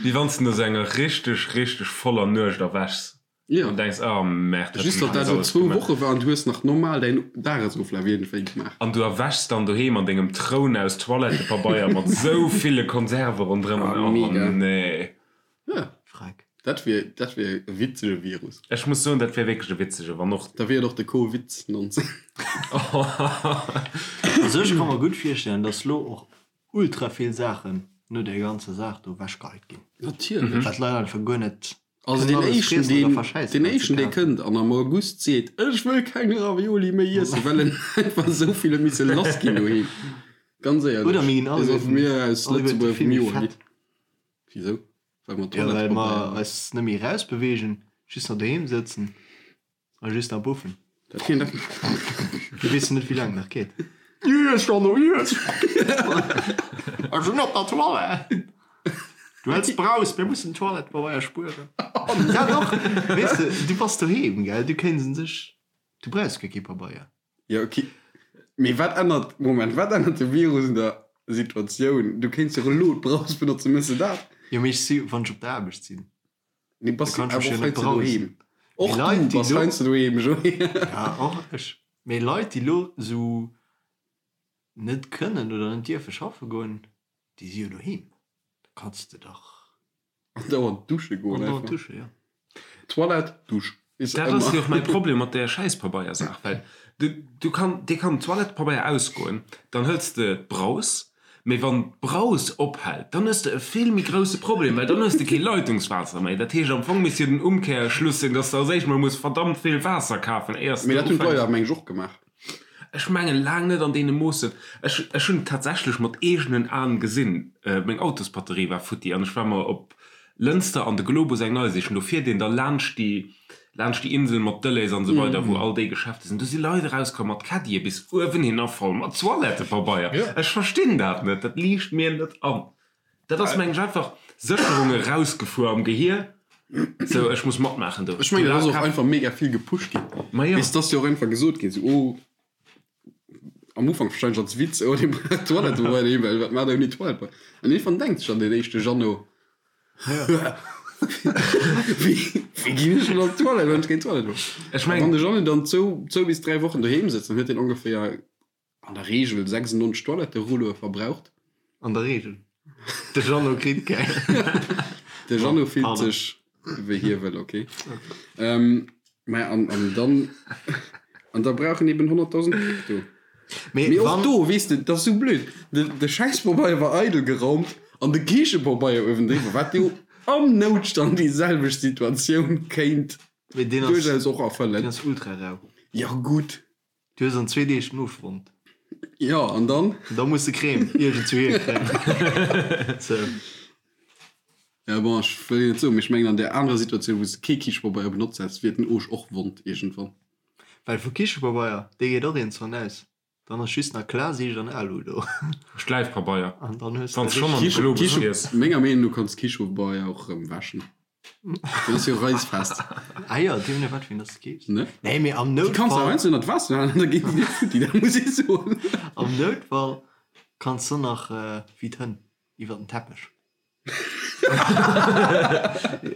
Wéi wann s de no esou enger richteg, richteg voller Nuecht erwächs. Ja. An denks, oh merde, Just datt dat elo zwou Woche war an du hues nach normal däin Dagesoflaf iergendwéi gemaach. An du erwächs dann doheem an dengem Troun aus Toilettepabeier mat sou ville Konserve ronderëm an Ah, oh mega. nee. Ja. Freck. Dat wier, dat wier e witzege Virus. Ech muss soen, dat wär wierklech e witzege, wann och. Da wier et och de Covid 19. Also ech ka mer gutt virstellen, dass lo och ultra vill Saachen no där ganzer Saach do ewechgeheit ginn. Natierlech. Wat d'Leit einfach guer net Also deen éischten deen deen éischten dee kënnt an am August seet ech wëll keng Ravioli méi iessen well en einfach esou vill huet misse lass ginn doheem, ganz éierlech, dee soll vu mir aus Lëtzebuerg vum Joer ginn. Wisou? Well mer Ja well mer eis net méi erausbeweegen, just nach doheem sëtzen. A just nach buffen. Dat kéint och. Du weess net wéi laang nach geet. Iess Jeannot, iess! Ech sinn op der Toilette! Du häls Braus, mir mussen Toilettepabeier spueren. Dat och, weess de, du bass doheem, gell, du kéints un sech, du brauchs guer kee Pabeier. Jo, ok. Mee wat ännert, Moment, wat ännert de Virus un der Situatioun? Du kéints jo och elo d'Braus benotzen, méchs de dat? Jo, mee ech si, wann ech op der Aarbecht sinn. Nee, bass Da du kann ech awer mech och jo net heiansdo brausen. doheem. Och Mee du Leit, déi bass lo, heiansdo doheem, Joé. ja, och ech. Mee Leit, déi lo sou net kënnen oder net dierfe schaffe goen, déi si jo doheem. Da kanns de dach Andauernd dusche goen andauernd einfach. dusche, jo. Toilette, Dusch. Is Dat ass ëmmer. jo och mäi Problem mat där Schäispabeiersaach, well du, du kann, dir kann Toilettepabeier ausgoen, dann hëls de d'Braus, Mee wann d'Braus ophält, dann hues de e vill méi grousse Problem, well dann hues de kee Leitungswaasser méi. Dat heescht, am Fong misst jo den Umkehrschluss sinn, dass de als éischt mol muss verdammt vill Waasser kafen, éiers Mee de dat hunn d'Leit ufänks. awer, meng ech, och gemaach. Ech mengen laang net an deene Moossen. Ech, ech hunn et tatsächlech mat eegenen Aen gesinn, meng Autosbatterie war futti an ech war mer op Lënster an de Globus eng nei sichen. Do fiert een da laanscht déi, laanscht déi Insel mat Delhaize an esou weider, wou all déi Geschäfte sinn. Do si Leit erauskomm mat Caddie bis uewenhinner voll mat Toilettepabeier. Ech verstinn dat net, dat liicht mir net an. Dat ass, mengen ech, einfach Sécherung erausgefuer am Gehier, sou ech muss matmaachen do. Ech mengen, dat ass och einfach mega vill gepusht ginn. Ma jo. Bis dass jo och einfach gesot ginn, sou, oh, am Ufank wahrscheinlech als Witz, oh, dee brauch Toilettepabeier doheem, well wat maacht der ouni Toilettepabeier? An iergendwann denkt sech dann deen éischte Jeannot, Wéi, wéi ginn ech dann an d'Toilette, wann ech keng Toilette hunn? Ech A mengen. wann de Jeannot dann zwou, zwou bis dräi Wochen doheem sëtzt, dann huet deen ongeféier an der Reegel 96 Toiletterulloe verbraucht. An der Reegel. De Jeannot kritt keng. De Jeannot fillt Pardon. sech wéi hie wëll, ok. Maja, an, an dann, an da brauch en eben 100.000 Päck do. Mee Mee och wann. do, weess de, dat ass sou blöd, de, de Schäisspabeier war eidel geraumt an de Kichepabeier uewendriwwer, wat jo. Am Noutstand déi selwecht Situatioun kéint Mee deen ass, duerchaus och erfëllen. deen ass ultra rau. Jo gutt. Du hues an zwee Deeg den Ofgrond. Jo, an dann? Da muss de Crème iergendzwou hierkréien. Sou. Ja bon, ech wëll jo net soen, mee ech mengen an där anerer Situatioun, wou s de kee Kichepabeier benotzt häss, wier den Oosch och wond iergendwann. Well vu Kichepabeier, dee geet och iergendzwann aus. Dann ass just nach Klarsiicht an Alu do. Schläifpabeier. An dann hues Wann de s schonn an de richteg. Globus fiers. Menger Meenung no kanns Kichepabeier och erëm wäschen. Deen ass jo reisfest. Ah jo, deemno no wat fir een dass de keefs. Ne? Nee, mee am Déi kanns de Noutfall. heiansdo ënnert d'Waasser halen an da ginn déi net futti, dat muss ech soen. Am Noutfall kanns de nach wéi d'Hënn iwwer den Teppech.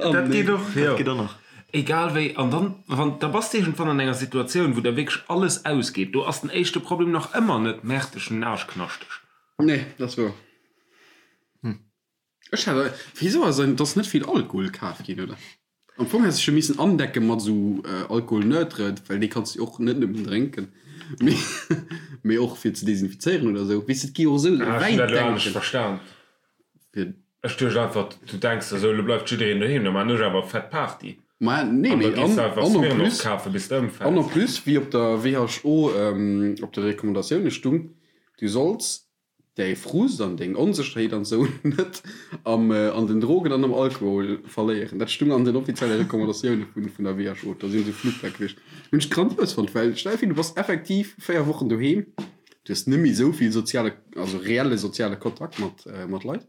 Dat geet och, jo. Dat geet och nach. Egal wéi, an dann, wann, da bass de iergendwann an enger Situatioun, wou der wierklech alles ausgeet. Do ass den éischte Problem nach ëmmer net, Merde, ech hunn den Aarsch knaschteg. Nee, dat ass wouer. Ech hat, wéisou ass et ass net vill Alkohol kaf ginn, oder? Am Fong häss ech jo missen andecken mat esou Alcool neutre, well dee kanns du jo och net nëmmen drénken, mee mee och fir ze desinfizéieren oder esou. Weess de, et gi jo och esou Ah, ech hunn wäit dat elo anescht denken. verstan. Fir. Ech duecht einfach, du denks der esou, elo bleift jiddereen doheem, da maan ech awer fett Party. Ma nee, An da mee gees an de einfach an en Smirnoff plus, kafen, bis de an en ëmfäls. plus, wéi op der WHO op de Recommandatioune stung, du solls däi Frust an deng Onsécherheet an esou net am an den Drogen an am Alkohol verléieren. Dat stung an den offizielle Recommandatioune vun vun der WHO. Da sinn esou Flugblätt gewiescht. Hunn ech grandios fonnt, well stell dir vir, du bass effektiv 4 Wochen doheem, du hues net méi esou vill soziale, also reelle soziale Kontakt mat mat Leit,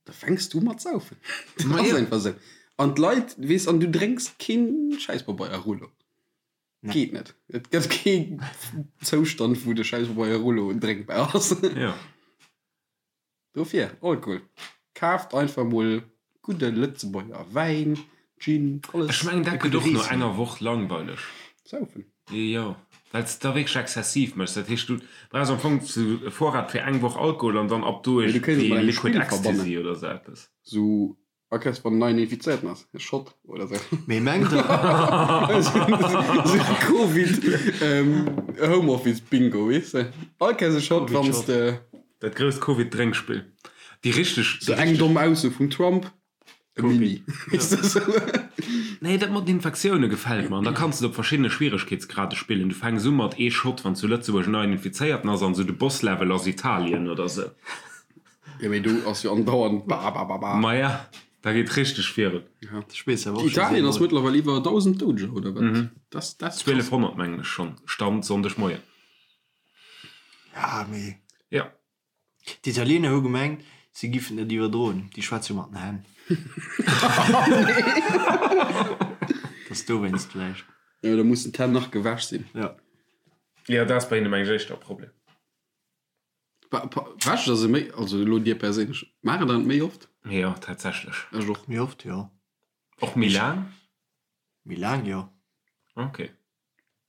da fänks du u mat saufen. Dat ass einfach esou. An d'Leit, weess, an du drénks keen Schäisspabeier-Rullo. Geet net. Et gëtt kee Zoustand, wou de Schäisspabeier Rullo drénkbar ass. Jo. Dofir, Alkohol. Kaaft einfach mol gudde Lëtzebuerger Wäin, Gin, alles. Ech mengen, dat gëtt och no enger Woch langweileg. Saufen. Jo, well s de da wierklech exzessiv méchs. Dat heescht, du brauchs am Fong sou e Vorrat fir eng Woch Alkohol an dann ab do Mee du kéints et iergendwéi mat engem Liquid Spill verbannen. Ecstasy oder sou eppes. Sou Akers wann neien infizéierten ass, e Shot oder sou. Mee mengt der. Sou Covid Homeoffice Bingo, weess de? All Kéiers e Shot wann s de. Dat grousst Covid Drénkspill. Déi richteg. Sou eng domm Ausso vum Trump, e Mini, weess de sou. Nee, dat mat den Infektioune gefält mer. An da kanns de et op verschiddene Schwieregkeetsgrade spillen. Du fänks u mat ee Shot wann zu Lëtzebuerg en neien Infizéierten ass an sou de Boss Level ass Italien oder sou. Jo mee do ass jo andauernd ba ba ba ba. Maja, da geet richteg virun. Italien ass mëttlerweil iwwer 1.000 Doudeger, oder wat? Das, das 1200 mengen ech schonn, Stand Sonndegmoien. Ja mee. Ja. D'Italiener hu gemengt, si giffen et iwwerdroen. Déi schwätze jo mat den Hänn. Dass dowéinst vläicht. Jo, da mussen d'Hänn nach gewäsch sinn. Ja. Jo, dat ass bei hinne mengen ech éischter e Problem. Wäscht der se méi, also elo dir perséinlech, maacht der dat méi oft? Jo, tatsächlech. Ech och. Méi oft, jo. Och méi laang? Méi laang, jo. Ok.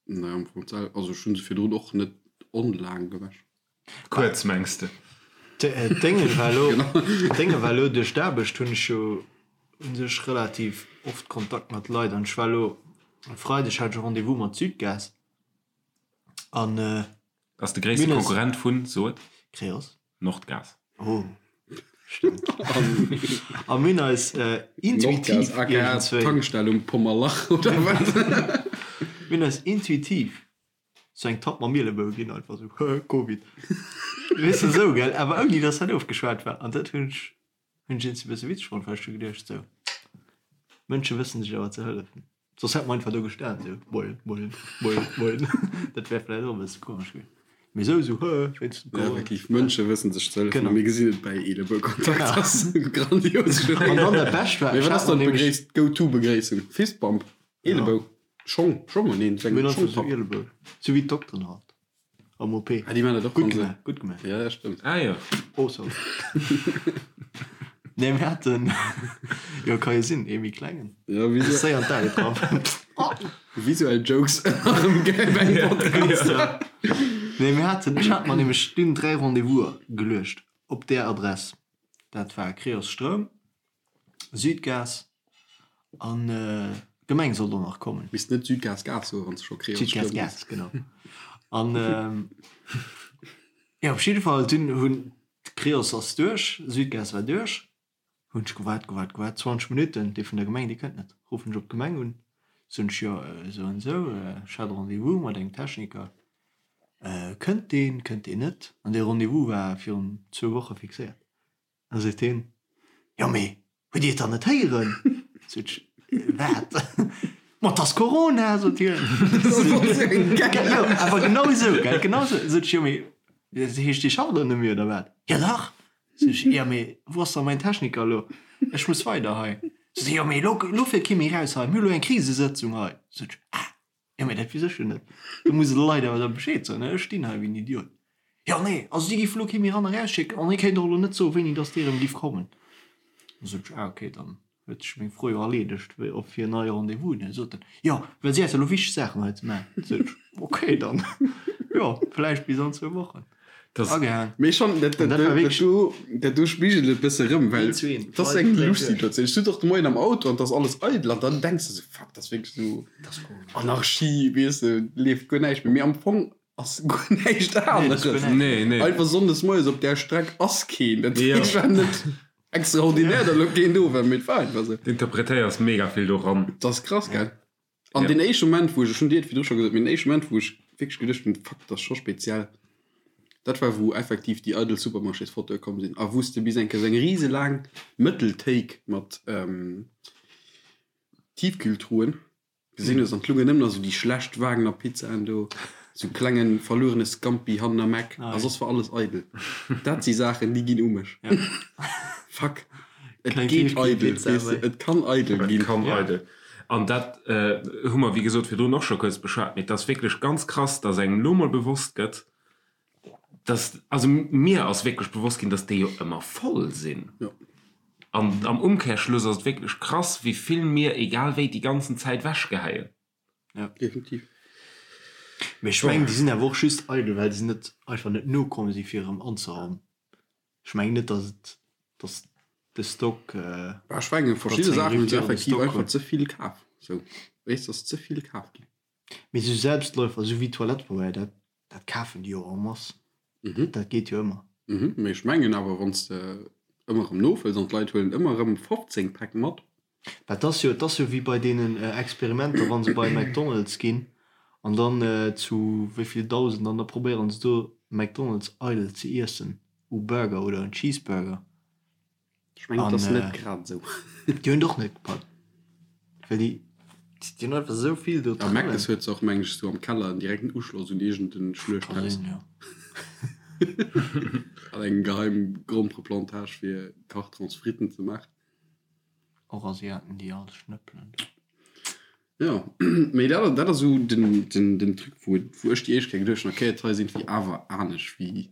Nee, am Fong d'sel, also ech hunn se virdrun och net onlaang gewäsch. Kuerz, mengs de? D'Dénge war elo, d'Dénge war elo duerch d'Aarbecht hunn ech jo u sech relativ oft Kontakt mat Leit an ech war elo e Freideg hat ech e Rendez-vous mat Südgas an Ass de gréisste Konkurrent vun, so et? Creos. Nordgas. Oh, stëmmt. A mir hunn eis intuitiv Nordgas, aka iergendzwéi. Tankstell um Pommerlach, oder wat? Mir hunn eis intuitiv sou eng Tapp mam Mielebou ginn, einfach sou, Hö, Covid. Weess de, sou, gell? Awer ouni dass dat ofgeschwat war. An dat hunn ech, hunn ech iergendwéi e bësse witzeg fonnt, well ech hu geduecht, sou, Mënsche wëssen sech awer ze hëllefen. Soss hätt mer einfach do gestan sou moien, moien, moien, moien. Dat wär vläicht och e bësse komesch gewiescht. Mee sou, sou hë, wéinst dem Ja, Corona. effektiv, Mënsche wëssen sech ze hëllefen. Genau. A mir gesinn et bäi Eelebou-Kontakt. Dat ass grandios. An dann dat Bescht war, Mee ech wat hat ass mer dann nämlech. d'Begréiss, d'Go-to-Begréissung? Fistbump? Eelebou? Schong? Schong? Neen, seng Mir hunn einfach sou Schongpapp. Eelebou. Sou wéi d'Dokteren halt. Am OP. Ah, déi man dat och Gutt wann se. gemaach, gutt gemaach. Ja, dat stëmmt. Ah jo. Oh, sorry. Nee, mir haten, jo, ka jo sinn, ee méi klengen. Ja, visu Séier an d'Ae getraff. visuell Jokes erëm gäil beim Podcast. Ja. Nee, mir haten, ech hat mer nämlech dunn 3 Rendez-vous'er geluecht op där Adress. Dat war Creos Stroum, Südgas an d'Gemeng sollt och nach kommen. Misst net Südgas Gas soen, wann s de scho Creos Südgas Stroum Gas, genau. An jo, op jidde Fall, dunn hunn d'Creos ass duerch, Südgas war duerch. Hunn ech gewaart, gewaart, gewaart, 20 Minutten, dee vun der Gemeng, dee kënnt net. Ruffen ech op d'Gemeng un, soen ech, jo, esou an esou, ech hat e Rendez-vous mat engem Techniker, kënnt deen, kënnt deen net? An dee Rendez-vous war virun zwou Woche fixéiert. Da seet hien, jo mee hutt Dir et dann net héieren? Sot ech, wat? Ma 't ass Corona, sot hien. Jo, awer genau esou, gell, genau esou. Sot ech, jo mee dat heescht Dir schafft elo net méi oder wat? Jo dach! Sot ech, jo mee wou ass da mäin Techniker elo? Ech muss weider hei. Sot hie, jo mee elo, elo fiert kee méi raus hei, mir hu elo eng Krisesëtzung hei. Sot ech, ah! Jo, mee dat weess ech jo net. Do muss e de Leit awer da Bescheed soen, ne? Ech stinn hei wéi en Idiot. Jo, nee, also si géife lo kee méi ran a rausschécken an hie kéint och elo net soen, wéini dass dee erëm giff kommen. Da sot ech, ah okay, dann huet sech meng Fro jo erleedegt, wéi op fir en neie Rendez-vous. Dann sot en, jo, well si hätte lo wichteg Saachen hei ze maachen. Sot ech, okay, dann, jo, vläicht bis an zwou Wochen. Agehaang. Mee schon, dat, dat, dat, do, dat do spigelt et bësse rëm, well dat ass eng lusch Situatioun. Ech sot och de Moien am Auto an 't ass alles eidel an dann denks de sou, fuck, dat ass wierklech sou Anarchie, weess de, leeft guer näischt méi. Mee am Fong ass guer näischt aneres. Nee, nee. Einfach sonndes moies op där Streck ass keen. Dat heescht, war net extraordinär, datt elo keen do war, mee et war einfach sou. Du interpretéiers mega vill do ran. Dat ass krass, gell? An deen éischte Moment, wou ech, ech hunn dir et virdru scho gesot, mee den éischte Moment, wou ech wierklech geduecht hunn, fuck, dat ass scho speziell, dat war, wou effektiv déi eidel Supermarchésfotoe komm sinn a wou s de bis eng Kéier esou eng riselaang Mëttelthéik mat Tiefkühltruhen gesinn hues an 't lungen nëmmen nach esou déi schlecht Wagner Pizzaen do, esou klenge verluerene Scampi hannen am Eck a soss war alles eidel. Dat si Saachen, déi ginn u mech. Fuck, et geet eidel, weess de, et kann eidel ginn. Et kann eidel. An dat hu mer, wéi gesot, virdrun och scho kuerz beschwat, mee et ass wierklech ganz krass, dass engem elo mol bewosst gëtt, dass, also mir ass wierklech bewosst ginn, dass déi jo ëmmer voll sinn. An am Umkehrschluss ass et wierklech krass, wéi vill mir, egal wéi, déi ganzen Zäit wechgeheien. Ja, definitiv. Mee ech mengen, déi sinn awer och just eidel, well se net einfach net nokomm si fir erëm anzeraumen. Ech mengen net, dass et, dass de Stock. Bah, ech mengen, verschidde Saachen hunn se effektiv einfach ze vill kaf. Sou, weess, ass ze vill kaf ginn. Mee sou Selbstläufer, sou wéi Toilettepabeier, dat, dat kafen déi jo en masse. Dat geet jo ëmmer. Mhm, mee ech mengen awer, wann s de ëmmer erëm nofëlls an d'Leit huelen ëmmer erëm 15 Päck mat. Bah, 't ass jo, 't ass jo wéi bei deenen Experimenter, wa se bei McDonald's ginn an dann zu wéi vill Dausend an da probéieren se do McDonald's eidel ze iessen u Burger oder en Cheeseburger. Ech mengen, 't ass net grad esou. Déi hunn et och net gepackt, well déi, déi hunn einfach esou vill do A Mc's huet se och, mengen ech, esou am Keller en direkten Uschloss un iergend en Schluechthaus. Ka sinn, jo. An eng geheim Grompereplantage fir Kartrons Fritten ze maachen. Och Asiaten déi all schnëppelen do. Jo, mee dat dat ass esou den den den Truc wou wou ech déi éischt Kéier geduecht hunn, okay et hei sinn wéi awer anescht wéi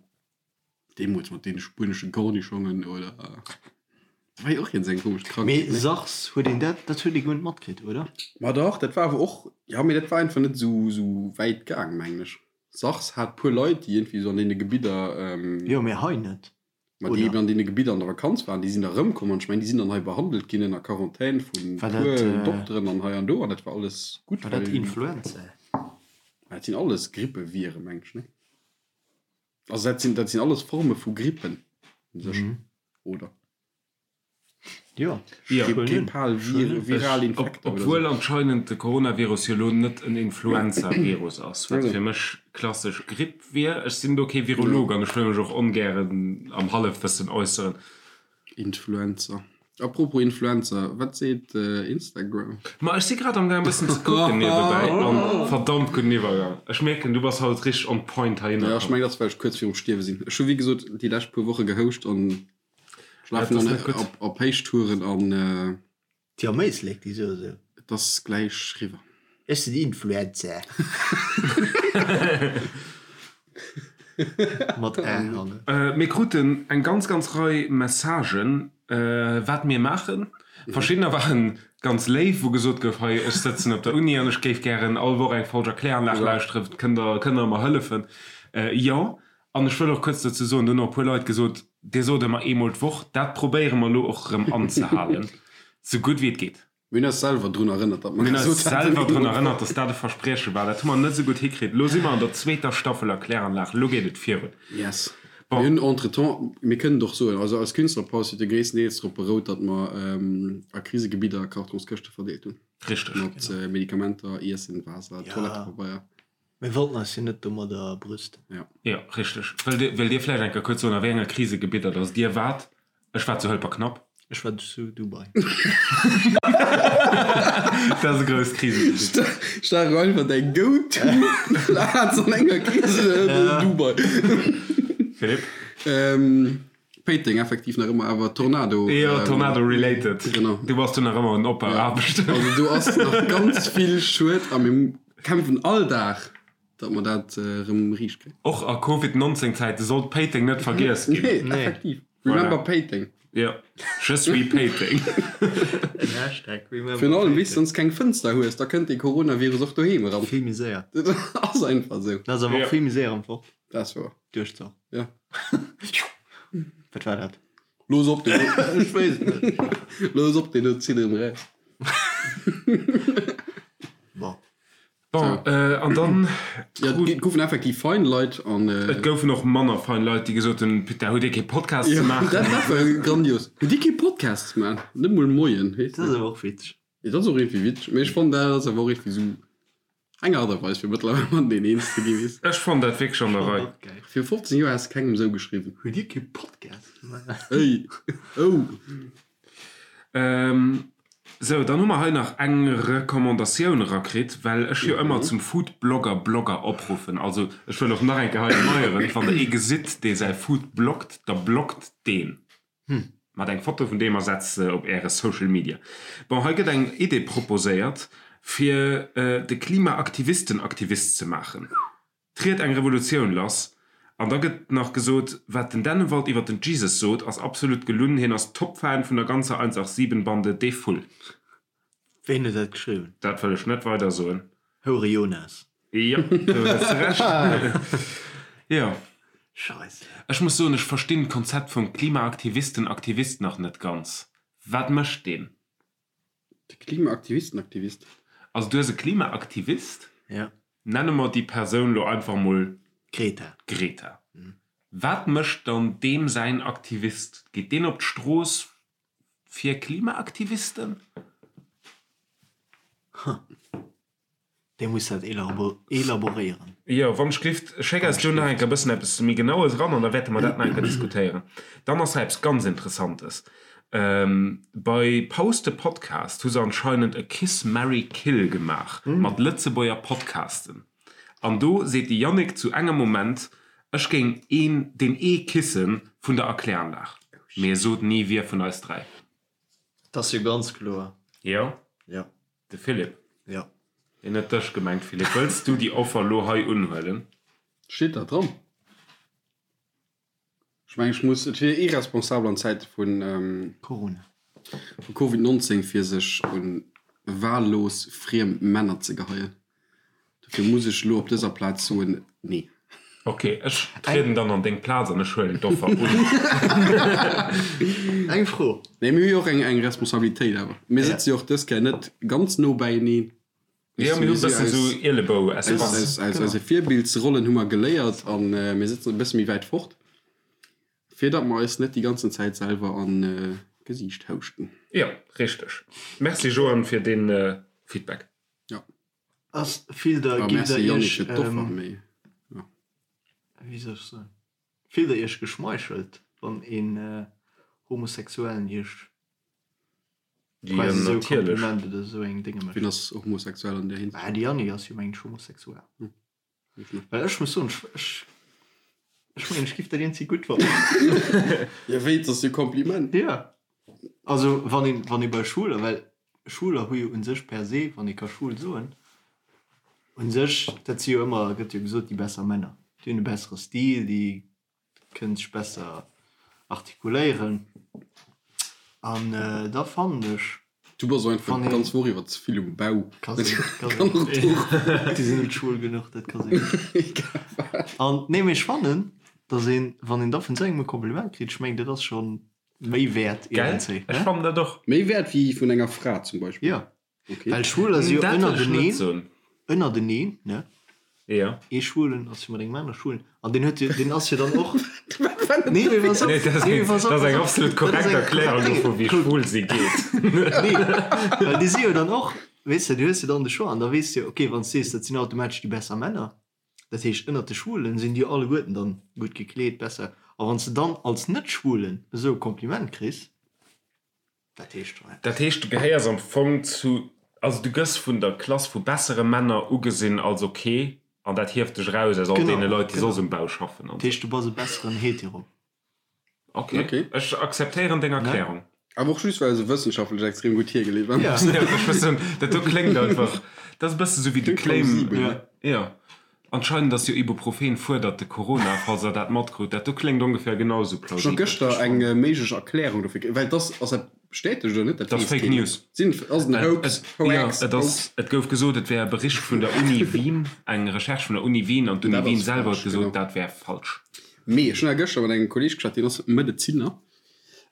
deemools mat deene spuenesche Kornischongen oder dat war jo och iergend eng komesch Krankheet, Mee ne? SARS, huet een dat, dat huet ee guer net matkritt, oder? Ma dach, dat war awer och, jo mee dat war einfach net esou esou wäit gaang mengen ech. SARS hat puer Leit déi iergendwéi esou an deene Gebidder, Jo, mee hei net. Ma déi eben an deene Gebidder an der Vakanz waren, déi sinn da erëmkomm an ech mengen, déi sinn dann hei behandelt ginn ënner Quarantän vu puer Dokteren an hei an do an dat war alles gutt. War dat Influenza? Dat sinn alles Grippeviren, meng ech, ne? Also dat sinn, dat sinn alles Forme vu Grippen u sech, oder? Jo, Grippal, viral Infekter oder Obwuel anscheinend de Coronavirus jo elo net en Influenza-Virus ass, wat fir mech klassesch Gripp wier. Ech sinn do kee Virolog an ech wëll mech och ongären am Hallefwëssen äusseren. Influenza. Apropos Influenza, wat seet Instagram? Ma ech si grad am gaang e bëssen ze kucken niewebäi an verdammt gudden Iwwergang. Ech mierken du bass haut richteg on point heihinner komm. Jo, ech mengen dat ass well ech kuerz virum Stierwe sinn. Ech hu wéi gesot déi lescht puer Woche gehouscht an Ech lafen dann op, op Héichtouren an. Déi am Éislek, déi soe sou. Et ass gläich riwwer. Ech sinn Influencer. Mat Ä hannen. Mir kruten eng ganz, ganz Rei Messagen, wat mir maachen. Verschiddener waren ganz léif, wou gesot gouf, hei, ech sëtzen op der Uni an ech géif gären all Woch eng Folg Erkläranlag lauschteren, kënnt Der, kënnt Der mer hëllefen? Jo. An ech wëll och kuerz dozou soen, do hunn och e puer Leit gesot, Dir sot ëmmer eemol d'Woch. Dat probéiere mer elo och erëm anzehalen, sou gutt wéi et geet. Mir hunn eis selwer drun erënnert, datt mer gesot haten. Mir hunn eis selwer drun erënnert, datt dat e Versprieche war. Dat hu mer net esou gutt hikritt. Elo si mer an der zweeter Staffel Erkläranlag. Elo geet et virun. Yes. Mir hunn entretemps, mir kënnen et och soen, also eis Künstlerpaus huet jo gréisstendeels drop berout, datt mer a Krisegebidder Kartonskëschte verdeelt hunn. Richteg. Mat Medikamenter, Iessen, Waasser, Toilettepabeier. Mir wollten eis jo net domadder brüsten. Jo. Jo, richteg. Wëllt Dir, wëllt Dir vläicht eng Kéier kuerz soen, a wéi enger Krisegebidder datt Dir waart? Ech war zu Hëlperknapp. Ech war zu Dubai. Dat ass e grousst Krisegebitt. Stach einfach däi Go-to-Plaz an enger Krise, Dubai. Philippe? Péiteng effektiv nach ëmmer, awer Tornado. Jo, Tornado related. Genau. Du bass do nach ëmmer un Opbauaarbechten. Also do ass nach ganz vill Schued a mir kämpfen all Dag, datt mer dat erëm riicht kréien. Och a Covid 19 Zäite sollt Péiteng net vergiess ginn. Nee, effektiv. Remember Péiteng. Jo, je suis Péiteng. En Hashtag Remember Virun allem, wéi s de sonst keng Fënster hues, da kënnt dee Coronavirus och doheem eran. Vill méi séier. Dat ass einfach esou. Dat ass awer och vill méi séier am Fort. Dat ass wouer. Duerch d'Sach. Ja. Wat war dat? Looss op deen Ech weess et net. Looss op deen do zitt erëm eraus. Bon. Bon, an dann. Ja, et goufen effektiv fein Leit an. Et goufen och manner fein Leit, déi gesot hunn, Putain, hutt Dir kee Podcast ze maachen? Dat war grandios. Hutt Dir kee Podcast ze maachen? Net mol Moien, heescht Dat ass awer och witzeg. Dat ass och iergendwéi witzeg, mee ech fannen, dat ass awer och iergendwéi esou eng Aart a Weis, fir mëttlerweil mateneen eens ze ginn, weess. Ech fannen dat wierklech an der Rei. Viru 15 Joer häss de kengem esou geschriwwen. Hutt Dir kee Podcast ze maachen? Ey, oh! Sou, dann hu mer hei nach eng Recommandatioun erakritt, well ech jo ëmmer zum Foodblogger Blogger opruffen. Also ech wëll och nach eng Kéier hei erneieren, wann der ee gesitt, dee säi Food bloggt, da bloggt deen. Mat eng Foto vun deem a setzt se op äre Social Media. Bon, hei gëtt eng Idee proposéiert, fir de Klimaaktivisten-Aktivist ze maachen. Triet eng Revolutioun lass. An da gëtt nach gesot, wat den Dennewald iwwer den Jesus sot, ass absolut gelunn, hien ass Top-Fan vun der ganzer 187 Bande, dee Vull. Ween huet dat geschriwwen? Dat wëll ech net weider soen. Houre Jonas. Jo, do hues de Recht. Jo. Scheisse. Ech muss soen, ech verstinn d'Konzept vum Klimaaktivisten-Aktivist nach net ganz. Wat mécht deen? De Klimaaktivisten-Aktivist. Also du hues e Klimaaktivist? Ja. Nenne mer déi Persoun lo einfach mol Greta. Greta. Wat mécht dann deem säin Aktivist? Geet deen op d'Strooss fir Klimaaktivisten? Huh. Dee muss dat elaboréieren. Jo, wann ech gelift, schéck eis do nach eng Kéier e bëssen eppes méi Genaues eran an da wäerte mer dat nach eng Kéier diskutéieren. Dann ass hei eppes ganz Interessantes. Bei Post de Podcast hu se anscheinend e Kiss Marry Kill gemaach mat Lëtzebuerger Podcasten. An do seet de Yannick zu engem Moment, ech géing een deen ee kissen vun der Erkläranlag. Mee e sot ni wie vun eis 3. Dat ass jo ganz kloer. Jo? Jo. De Philippe? Jo. Hien huet dech gemengt, Philippe. Wëlls du déi Offer lo hei unhuelen? Steet dat dran? Ech mengen, ech muss, et wier irresponsabel an Zäite vun Corona. Vu Covid 19 fir sech un wahllos friem Männer ze geheien. Dofir muss ech elo op dëser Plaz soen, nee. Ok, ech trieden dann an deng Plaz an ech huelen d'Offer un. Eng Fro. Nee, mir hu jo och eng Responsabilitéit awer. Mir sëtze jo och dës Kéier net ganz no beieneen. Jo, mir hu e bëssen esou Ielebou-Espace. Aus eise Virbildsrollen hu mer geléiert a mir sëtzen e bësse méi wäit fort, fir datt mer eis net déi ganzen Zäit selwer an d'Gesiicht houschten. Jo, richteg. Merci Joan fir dee Feedback. Jo. Ass fillt der, Ah, gitt der merci Yannick iech, fir d'Offer, mee jo. wéi soll ech soen, fillt der iech geschmeichelt, wann een Homosexuellen iech Jo, quasi esou natierlech. Kompliment oder esou eng Dénge Wien mécht? ass homosexuell an där Hinsicht? Bah, de Yannick ass jo mengen ech homosexuell. Well ech muss soen, ech, ech, ech mengen ech giff dat iergendwéi gutt fannen. Jo, wéi, et ass jo e Kompliment. Jo. Also wann een, wann ee bei Schwuler, well Schwuler hu jo un sech per se, wann ee ka schwul soen, un sech, dat si jo ëmmer, gëtt jo gesot, déi besser Männer. Déi hunn e bessere Stil, déi kënnen sech besser artikuléieren. An da fannen ech. Du bass och einfach Wann een. d'ganz Woch iwwer ze vill um Bau. Ka sinn, ka Kann och sinn. do. Déi sinn net schwul genuch, dat ka sinn. Egal wat. An nee, mee ech fannen, datt een, wann een da vun esou engem e Kompliment kritt, ech mengen, dat ass scho méi wäert Gell? iergendzéi, Ech ne? fannen dat och. Méi wäert wéi vun enger Fra zum Beispill? Jo, Okay. well Schwuler si jo Dat wëll ech net ënnerteneen, soen. ënnerteneen, ne? Jo. Ee Schwulen ass jo mat engem anere Schwulen an deen huet jo, deen ass jo dann och. Nee, mee pass op, Nee, dat ass nee, eng, pass op, dat ass pass eng op. absolut Dat ass korrekt eng Erklärung korrekt Dénge. dovun, wéi Kuck. schwul si geet. Nee, well déi si jo dann och, weess de, du hues jo dann de Choix an da weess de jo, okay, wann s de sees, dat sinn automatesch déi besser Männer, dat heescht ënnert de Schwulen sinn déi jo alleguerten dann gutt gekleet, besser. A wann s de dann als Net-Schwulen esou e Kompliment kriss, Dat heescht schon eppes. Dat heescht, du gehéiers am Fong zu, also du gëss vun der Klass vu bessere Männer ugesinn als ok, an dat hieft dech eraus aus all deene Leit, déi soss um Bau schaffen an Dat heescht, du bass e besseren Hetero. Ok, ech akzeptéieren deng Erklärung. Awer och just, well se wëssenschaftlech extrem gutt hiergeleet war. Jo, ech wëss net, dat do kléngt einfach, dat ass e bësse sou wéi de Kléngt Claim. plausibel, ne? Jo, anscheinend ass jo Ibuprofen fuerdert de Corona, falls der dat matkrutt. Dat do kléngt ongeféier genau esou Ech hu plausibel. gëschter eng méiglech Erklärung dofir kritt, well et ass, ass dat bestätegt oder net? Dat Dat ass weess Fake keen. News. Sinn, ass et en Hoax? Et, jo, Hoax? et ass, Hoax? et gouf gesot, et wär e Bericht vun der Uni Wien, eng Recherche vun der Uni Wien, an d'Uni Dat Wien ass selwer huet falsch, gesot, genau. dat wär falsch. Mee ech hunn awer gëschter mat engem Kolleeg geschwat, deen ass Medezinner,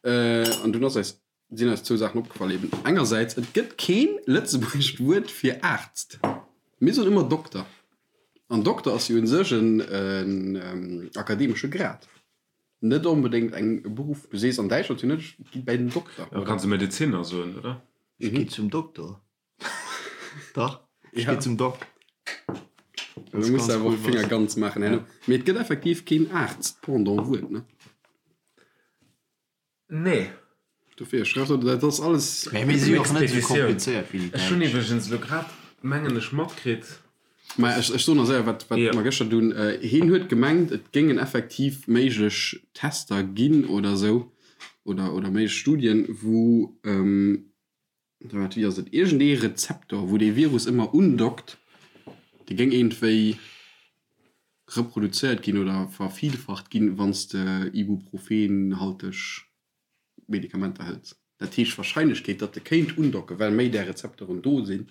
an dunn ass eis, sinn eis zwou Saachen opgefall eben. Engersäits, et gëtt keen lëtzebuergescht Wuert fir Aarzt. Mir soen ëmmer Dokter. An Dokter ass jo u sech en akademesche Grad, net onbedéngt eng e Beruff. Du sees an Däitschland jo net, ech gi bäi den Dokter, Da oder? kanns de Medezinner soen, oder? Ech gi zum Dokter. Dach, ech gi zum Doc. Du muss awer och Finger ganz maachen herno. Mee et gëtt effektiv keen Aarzt-Pendant-Wuert, ne? Nee. Dofir, ech schreiw dat ass alles. Mee mir si jo och net esou Expeditioun. komplizéiert wéi déi Ech hunn Däitsch. iwwregens elo grad, mengen ech, matkritt. Mä ech, ech soen nach séier, wat, wat Jo. mer gëschter dunn, hien huet gemengt, et géingen effektiv méiglech Tester ginn oder esou, oder, oder méiglech Studien, wou, wat, wéi ass et, iergendee Rezeptor, wou dee Virus ëmmer undockt, dee géing iergendwéi reproduzéiert ginn oder vervielfacht ginn, wann s de ibuprofenhalteg Medikamenter hëls. Dat heescht, d'Warscheinlechkeet, datt e kéint undocken, well méi där Rezeptoren do sinn,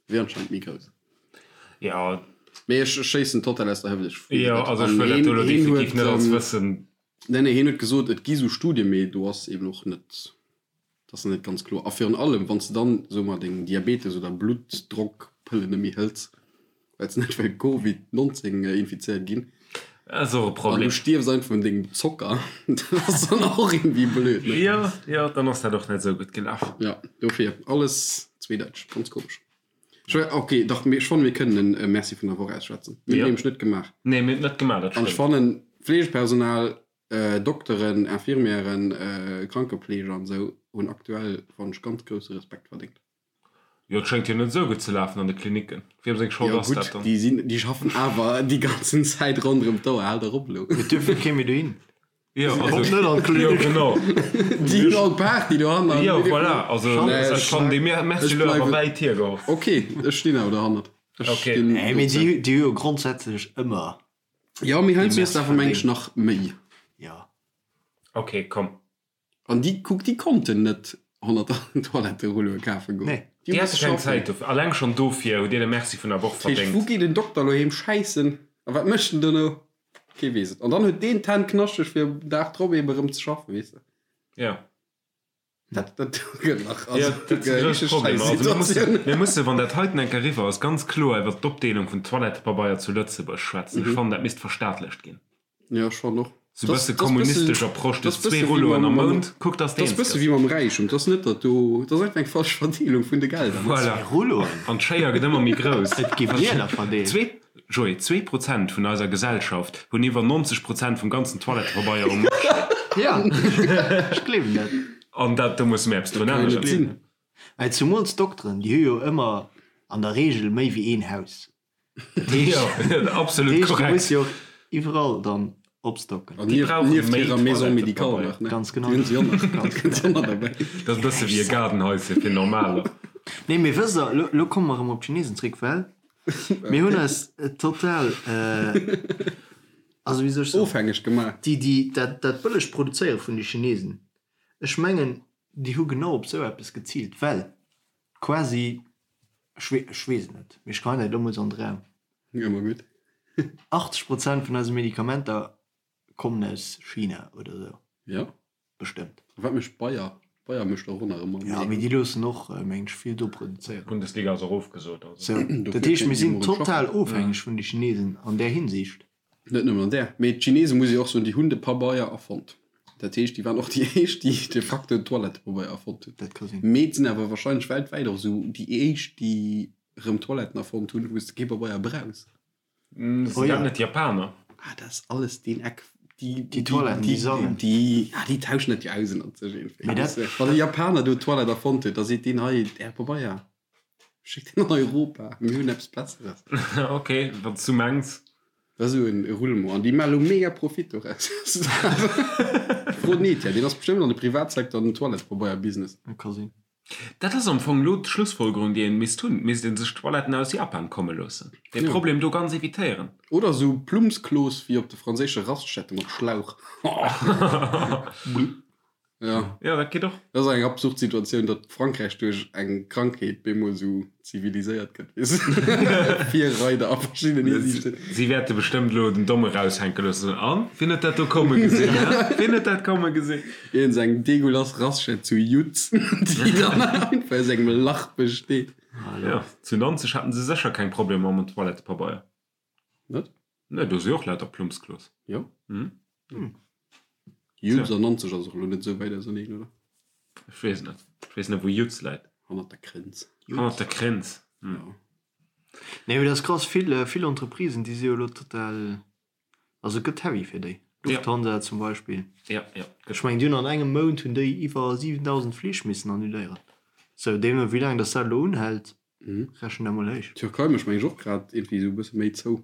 wier anscheinend méi grouss. Jo. Mee ech schéissen total aus der Hëft, ech weess et Jo, net. also ech An wëll dat hien, do elo hien definitiv huet, net als Wëssen. Nee, nee, hien huet gesot, et gi sou Studien, mee do ass eben och net Dat ass net ganz kloer. A virun allem, wann s de dann, soe mer, deng Diabetes oder Bluttdrockpëllen net méi hëls, well s de net wëll Covid 19 infizéiert ginn, Dat ass och e an du Problem. stierfs einfach un dengem Zocker, dat ass dann och iergendwéi blöd, ne? Jo, jo, dann ass dat och net esou gutt gelaf. Jo, dofir, alles zweedeiteg, ganz komesch. Ech wär, ok, dach, mee ech fannen, mir kënnen en Merci vun der Woch ausschwätzen. Mir hunn et Jo. nämlech net gemaach. Nee, mir hunn et net gemaach, dat An ech stëmmt. fannen, Fleegepersonal, Dokteren, Infirmièren, Krankepfleger an esou hunn aktuell, fannen ech, ganz grousse Respekt verdéngt. Jo, et schéngt jo net esou gutt ze lafen an de Klinicken. Wiem seng Schold Jo ass dat gutt, dann? déi sinn, déi schaffen awer déi ganzen Zäit ronderëm d'Auer. Hal dach op elo. Et duerf jo kee méi dohin. Jo, also, Kommt net an jo, d'Klinik. genau. Déi hunn all Party dohannert. Jo, voilà, also Nee, ech ech, fannen dee Merci ech elo awer bleiwen, wäit hiergeholl. ok, ech stinn awer dohannert. Ech Ok. stinn Nee, mee dozou. déi déi hu jo grondsätzlech ëmmer Jo, mee déi heiansdo ass Merci et awer mengen ech verdéngt. nach méi. Jo. Ok, komm. An déi, kuck, déi konnten net 100 Toiletterulloe kafe goen. Nee. Déi Déi hu hate misse keng schaffen. Zäit dofir. Alleng schonn dofir hutt Dir de Merci vun der Woch Dat heescht, wou verdéngt. geet en Dokter elo heem schäissen? A wat mécht en dono? Kee weess et. An dann huet deen d'Hänn knaschteg, fir um Dag drop eebe erëm ze schaffen, weess de. Jo. Dat, dat gëtt nach, Jo, also, dat si eng grouss richteg Problemer. Also mir mussen, Schäissituatioun. mir mussen, wann dat heiten eng Kéier eriwwer ass, ganz kloer iwwert d'Opdeelung vun Toilettepabeier zu Lëtzebuerg schwätzen. Ech fannen, dat misst verstaatlecht ginn. Jo, ech fannen och. Sou Das, bësse das bësse, kommunistesch Approche, du das hues zwee bësse wéi Rulloen mam, am mam, Mount, kuck dass de das eens bësse gëss. wéi mam Räichtum. Das net, datt do, das ass einfach eng falsch Verdeelung vun de Gelder, ne? Voilà. Zwee Rulloen? An d'Schéier gëtt ëmmer méi grouss. Et gi Wieler verdeelt. Zwee, Joé, 2% vun eiser Gesellschaft hunn iwwer 90% vum ganzen Toilettepabeier um Marché. Ja, ech gleewen dat. An dat, do musse mir eppes drun Kann jo net änneren. sinn. Well zumools d'Dokteren, déi hu jo ëmmer an der Reegel méi wéi een Haus. Dat heescht, Jo, dat absolut heescht, du korrekt. muss jo och iwwerall dann opstocken. An Déi nieft, brauche nieft méi hirer Maison médicale Toilettepabeier. nach, ne? Ganz genau. Déi hunn se jo nach. Ganz Déi hunn se jo nach derbäi. Dat ass e bësse wéi e Gaardenhaische fir Normaler. Nee, mee wësst der, lo, lo komme mer erëm op d'Chinesen zréck, well mir hunn eis total, also wéi soll ech soen, Ofhängeg gemaach. déi, déi, dat, dat bëlleg Produzéiere vun de Chinesen, ech mengen, déi hu genau op esou eppes geziilt, well quasi, ech wee, ech weess et net, mee ech geheien dat elo mol esou an de Raum, Ëmmer gutt. 80 Prozent vun eise Medikamenter kommen aus China oder esou. Jo. Bestëmmt. A wat mécht Bayer? Bayern mécht och nach ëmmer Ja, mee déi loossen och, mengen ech, vill do produzéieren. D'Bundesliga ass och ofgesot, also. Sou, dat heescht, mir sinn total ofhängeg vun de Chinesen an där Hinsicht. Net nëmmen an där, mee d'Chinesen, muss ee och soen, déi hunn de Pabeier erfonnt. Dat heescht, déi waren och déi éischt, déi de facto den Toilettepabeier erfonnt hunn. Dat ka sinn. Mee et sinn awer warscheinlech weltwäit och esou déi éischt, déi erëm Toiletten erfonnt hunn, wou s de kee Pabeier brauchs. Sinn dat net d'Japaner? Ah, dat ass alles deen Eck. Déi, déi Toiletten, déi sangen. Déi, ah, déi tauschen dat jo aus ënnert sech iergendwéi. Mee dat. Wann e Japaner do d'Toilette erfonnt huet, da seet deen hei, Är Pabeier, schéckt deen an Europa, mir hunn eppes Besseres. Ok, wann s du mengs. Dat ass esou e Roulement. An déi maache lo mega Profit doraus. Fro den Etienne, deen ass bestëmmt an de Privatsecteur an den Toilettepabeier-Business. Dat ka sinn. Dat ass am Fong elo d'Schlussfolgerung, déi een misst hunn. Et misst ee sech d'Toiletten aus Japan komme loossen. Dee Problem do ganz evitéieren. Oder esou Plumpsklos wéi op de franséische Raststätte mat Schlauch. Jo. Jo, dat geet och. Dat ass eng absurd Situatioun, datt Frankräich duerch eng Krankheet bemol esou ziviliséiert gëtt, weess de. Virreider a verschiddenen Hisiichten. Si wäerte bestëmmt elo den Domm eraushänke loossen. An? Wien huet dat do komme gesinn, hä? Wien huet dat komme gesinn? Iergend eng degueulass Raststätt zu Yutz, déi dann einfach aus engem Lach besteet. Jo, zu Nanzeg haten se sécher keng Problemer mam Toilettepabeier. Net? Nee, do si och lauter Plumpsklos. Jo? Yutz an Nanzeg ass och elo net esou wäit auserneen, oder? Ech weess net. Ech weess net, wou Yutz läit. Hannert der Grenz. Hannert der Grenz, hm. Jo. Nee, mee dat ass krass. Vill, vill Entreprisen, déi si jo elo total Also et gëtt heavy fir déi. Lufthansa zum Beispill. Ja, ja. Ech mengen déi hunn an engem Mount hunn déi iwwer 7.000 Flich missen annuléieren. Sou, deemno wéi laang datt dat elo unhält, rechent dat mol héich. D'Türkei mécht meng ech och grad iergendwéi esou e bësse méi zou.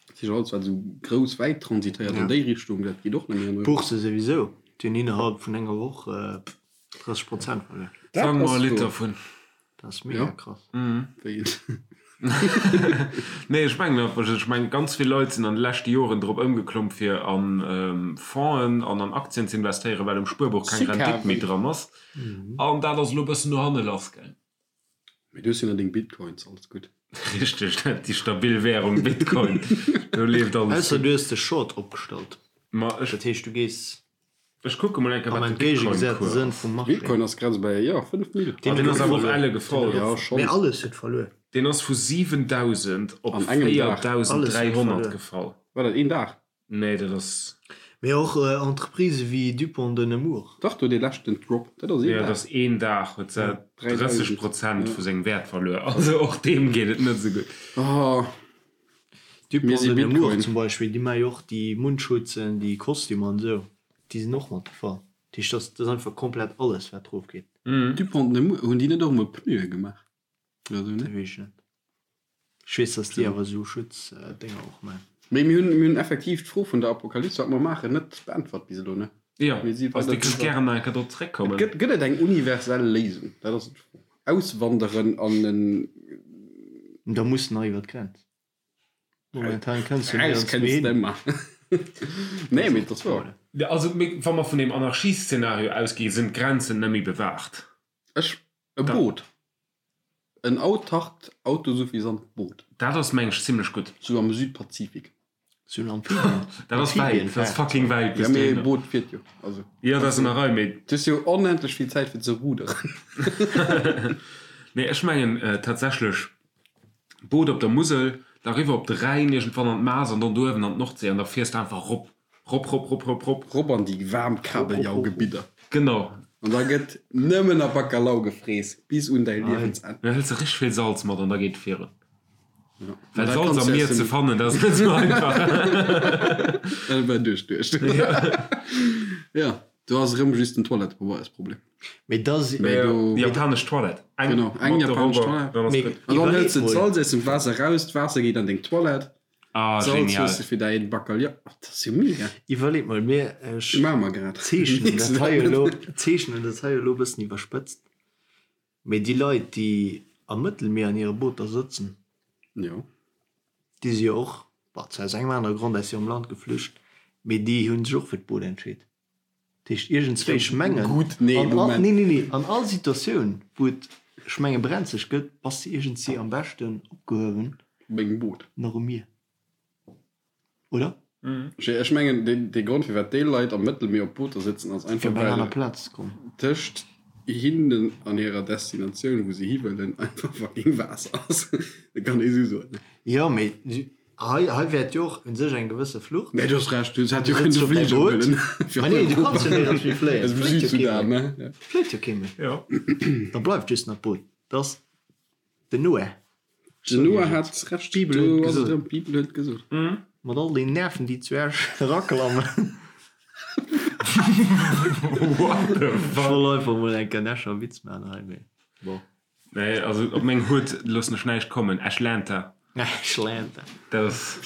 Dat heescht alles wat esou grouss wäit transitéiert an déi Richtung, dat geet och net méi an Europa. D'Bourse souwisou, déi hunn innerhalb vun enger Woch 30 Prozent verluer. Fang mer e Lidd dervun. Dat ass mega krass. Wéi een? Nee, ech mengen einfach, ech mengen ganz vill Leit sinn an de leschte Joren drop ëmgeklomm fir a Fongen an an Aktien ze investéieren, well um Spuerbuch keng Rendite méi dran ass. An dat ass elo e bëssen no hanne lass gaang. Mee du hues jo nach deng Bitcoins, alles gutt. Richteg, dat déi stabil Währung Bitcoin, do leeft alles Ausser gutt. du hues de Short opgestallt. Ma ech. Dat heescht du gees Ech kucke mol eng Kéier Am wat de entgéigegesaten Bitcoin-Cours Sënn ass. vum Marché. Bitcoin ass grad esou bei, jo, 5 Mille. Deen Deen ass huet awer och verluer. elle gefall. Jo, schonns. Mee alles huet verluer. Deen ass vu 7.000 op An engem Dag. Alles huet 4.300 verluer. gefall. War dat een Dag? Nee, dat ass. Mee och Entreprisë wéi Dupont de Nemours. Dach, do dee leschten Drop, dat ass een Jo, dat Dag. ass een Dag, huet se 3.000. 30 Prozent vu sengem Wäert verluer. Also och deem geet et net esou gutt. Oh, mir Dupont si de Nemours Bitcoin. zum Beispill, déi maache jo och déi Mundschutze, déi Kostümer an esou. Déi sinn och mat gefall. Dat heescht, dat ass einfach komplett alles, wat erof geet. Dupont de Nemours, hunn déi net och emol Pneue gemaach oder esou, Dat ne? weess ech net. Ech weess, datt déi awer esou Schutzdénger och maachen. Mee mir hunn, mir hunn effektiv d'Fro vun der Apokalypse, wat mer maachen, net beäntwert bis elo, ne? Jo, Mir si also weider Dir kënnt driwwer. gären nach eng Kéier drop Et zeréckkommen. gëtt, gëtt et eng universell Léisung? Dat ass d'Fro. Auswanderen an en. Da muss nach iwwer d'Grenz. Momentan kënns du Raus nirgends méi kënns hin. de ëmmer. Nee, mee et ass wouer. Ja, also mir, wa mer vun deem Anarchieszenario ausginn, sinn d'Grenzen net méi bewaacht. Ech, e Boot. En autarkt, autosuffisant Boot. Dat ass, meng ech, zimlech gutt. Sou am Südpazifik. Sou en Amphibien. Dat ass wäit, dat ass fucking wäit Ja, bis mee e dohinner. Boot fiert jo. Also. Jo, dat ass an der Rei, mee. Du hues jo onendlech vill Zäit fir ze ruderen. Nee, ech mengen tatsächlech Boot op der Musel, da riwwer op de Rhäin, iergendwann an d'Maas an dann do uewen an d'Nordsee an da fiers de einfach rop, rop, rop, rop, rop, rop. Rop an déi waarm Kabeljaugebidder. Genau. An da gëtt nëmmen a Bacalao gefrees bis un däi Liewensenn. Da hëls de richteg vill Salz mat an da geet et virun. Ja. Well Salz am Mier ze fannen, dat ass net esou einfach. Dat war duerchduecht. Ja, do ass erëm just den Toilettepabeiersproblem. Mee da si. Mee do. Japanesch Toilette. Eng Genau, eng mat der japanesch Robber, Toilette. dann ass Mee gutt. An dann iwwerleet hëls de mol. d'Salz aus dem Waasser raus, d'Waasser geet an deng Toilette, Ah, d'Salz genial. hues de fir däi Bacalhau. Oh, dat ass jo mega. Iwwerleet mol, mir, ech Maache mer grad. zeechnen dat hei elo, zeechnen dat hei elo e bëssen iwwerspëtzt, mee déi Leit, déi am Mëttelmier an hire Booter sëtzen, Jo. déi si jo och, bon, zwar aus engem anere Grond aus hirem Land geflücht, mee déi hu sech och fir d'Boot entscheet. Dat heescht, iergendswéi, ech mengen, Gutt, nee, an all, Moment. nee, nee, nee, an all Situatioun, wou et, ech menge brenzeg gëtt, bass de iergendwéi am beschten opgehuewen Op engem Boot. nach um Mier, oder? Ech mengen, dee Grond, firwat déi Leit am Mëttelmier op Booter sëtzen, ass Fir einfach, op eng aner well Plaz ze kommen. tëscht. hinnen an hirer Destinatioun, wou se hiwëllen, einfach fucking Waasser ass. Dat kann ee sou soen. Jo, mee hei, hei wäert jo och un sech eng gewësse Flucht. Mee du hues Recht, du hätt jo kënne de Fliger huelen. Ma nee, du kanns jo néierens méi fléien. Aus dem Südsudan, ne? Ja. Fléit jo kee méi. Jo. Da bleift just nach d'Boot. Dat ass den Noah. Den Noah hat Recht. D'Bibel huet Do ass et gesot. erëm, d'Bibel huet gesot. Mat all den Nerven, déi zu Esch eraklammen. What the Ech fuck? wollt einfach mol eng Kéier en Escher Witz maachen hei, mee bon. Nee, also op meng Hutt loossen ech näischt kommen. Eschlanta. Eschlanta. Dat ass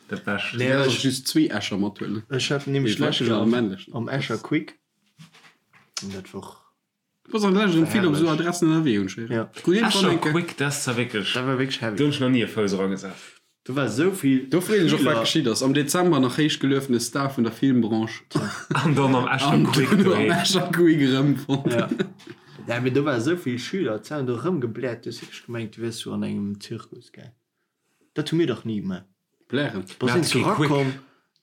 dat Bescht. Nee, Du däerfs ech, och just zwee Escher mathuelen. ech hat nämlech Dee d'lescht weiblechen Joer an de männlechen. am Escher Quick, an dat wor Du bass an der Lescht erëm vill op esou herrlech. Adressen ënnerwee, hunn ech héieren. Ja. Krut iergendwann Escher eng Kéier. Quick, dat ass zwar wierklech. Dat war wierklech heavy. Do hunn ech nach ni e Fouss eragesat. Do war esou vill Do freet ech och, wat Schüler. geschitt ass. Am Dezember nach héich geluefene Star vun der Filmbranche. An dann am Escher An Quick duerno am doheem. Escher Quick erëmfonnt. Ja. Ja, mee do war esou vill Schüler, d'Zäun do erëmgebläert, du hues wierklech gemengt, du wiers sou an engem Zirkus, gell? Dat hu mir dach ni gemaach. Blären. Bass Mir een hate zu kee Quick. rakomm?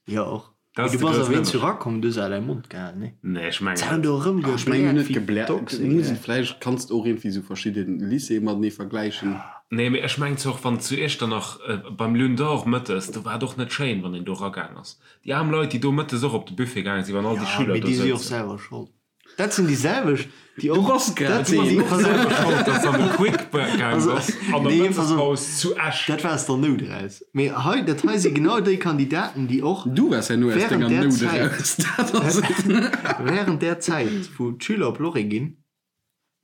Jo, och. Dat Mee ass du de bass groussen awer een zu Ënnerscheed. rakomm, du hues awer däi Mond gehalen, nee? Nee, ech mengen D'Zäun net. do Ech mengen erëmgebläert net wéi gebläert. Doxen, Du muss gell? et vläicht, kanns de och iergendwéi sou verschidde Lycéeë matenee vergläichen. Nee, mee ech mengen zwar och, wann zu Iechternach beim Lune d'Or mëttes, do war et och net schéin, wann een do eragaang ass. Déi aarm Leit, déi do mëttes och op de Buffet gaange sinn, wann all déi Ja, Schüler mee do déi si och souzen. selwer schold. Dat sinn déi selwecht, déi och. Du bass grad Dat sinn deen. déi Du bass selwer schold, dass an de Quick gaang bass an der Nee, pass op. Mëttespaus zu Esch. Dat war aus der Nout eraus. Mee hei, dat hei si genau déi Kandidaten, déi och Du waars herno aus während denger där Nout Zäit, eraus. Dat ass et. während där Zäit, wou d'Schüler op Lorry ginn,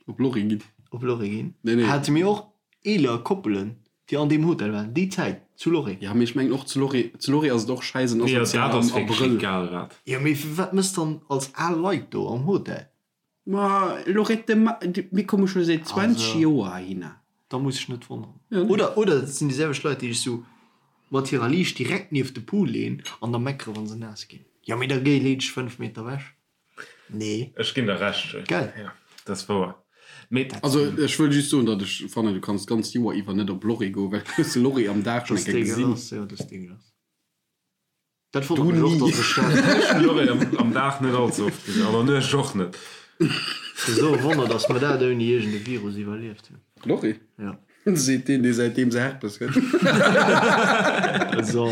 Op Lorry ginn. Op Lorry ginn, Nee, nee. hate mir och eeler Koppelen, déi an deem Hotel waren, déi Zäit zu Lorry. Ja, mee ech mengen och zu Lorry, zu Lorry ass et och schäiss en Jo, dat asozial ass am wierklech Abrëll. egal wat. Jo, mee wat mëss dann als al Leit do am Hotel? Ma Lorette, ma mir komme scho säit 20 Also. Joer heihinner. Da muss ech net wonneren. Ja, nee. Oder, oder et sinn déi selwecht Leit, déi sech sou mat hirer Liicht direkt nieft de Pool leeën an da meckere wa se naass ginn. Jo, mee da géi, lee dech 5 Meter ewech. Nee. Ech ginn der Recht, Jay. Gell? Ja, dat ass wouer. Mee. Also ech wëll just soen, datt ech fannen, du kanns d'ganzt Joer iwwer net op Lorry goen, well du hues de Lorry am Dag schonn Das eng Kéier gesinn. degueulass, jo, das degueulass. Dat Du wonnert mech och, ni. datt ech dat. Ech hunn Lorry am, am Dag net all ze oft gesinn, an der Nuecht och net. Esou e Wonner, datt mer dat ouni iergend e Virus iwwerlieft hunn. Lorry? Ja. Seet deen, dee säitdeem se Herpes huet. So.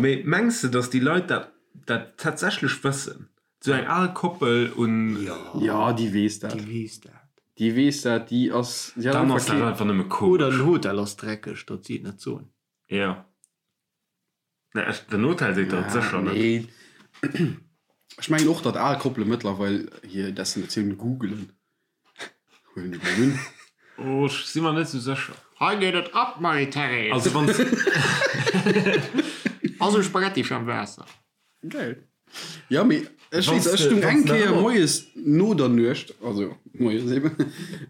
Mee mengs de, datt déi Leit dat dat tatsächlech wëssen? Sou eng al Koppel un. Jo, déi weess dat. Déi weess dat. Déi weess dat, déi ass. Déi hat Dann einfach ass dat kee. einfach nëmme komesch. Oder den Hotel ass dreckeg, datt si et net soen. Jo. Nee, ech, den Hotel seet der et sécher net. Nee. Ech mengen och, datt al Koppele mëttlerweil hir Destinatioun googelen. Huelen ech mol un. Oh, ech si mer net sou sécher. Hei geet et ab, Marie-Thérèse! Also wann s. Also Spaghetti fir am Waasser. Geil. Ja, mee ech Wanns weess, ech de- stung wanns eng de Kéier ëmmer- moies no der Nuecht, also moies eben,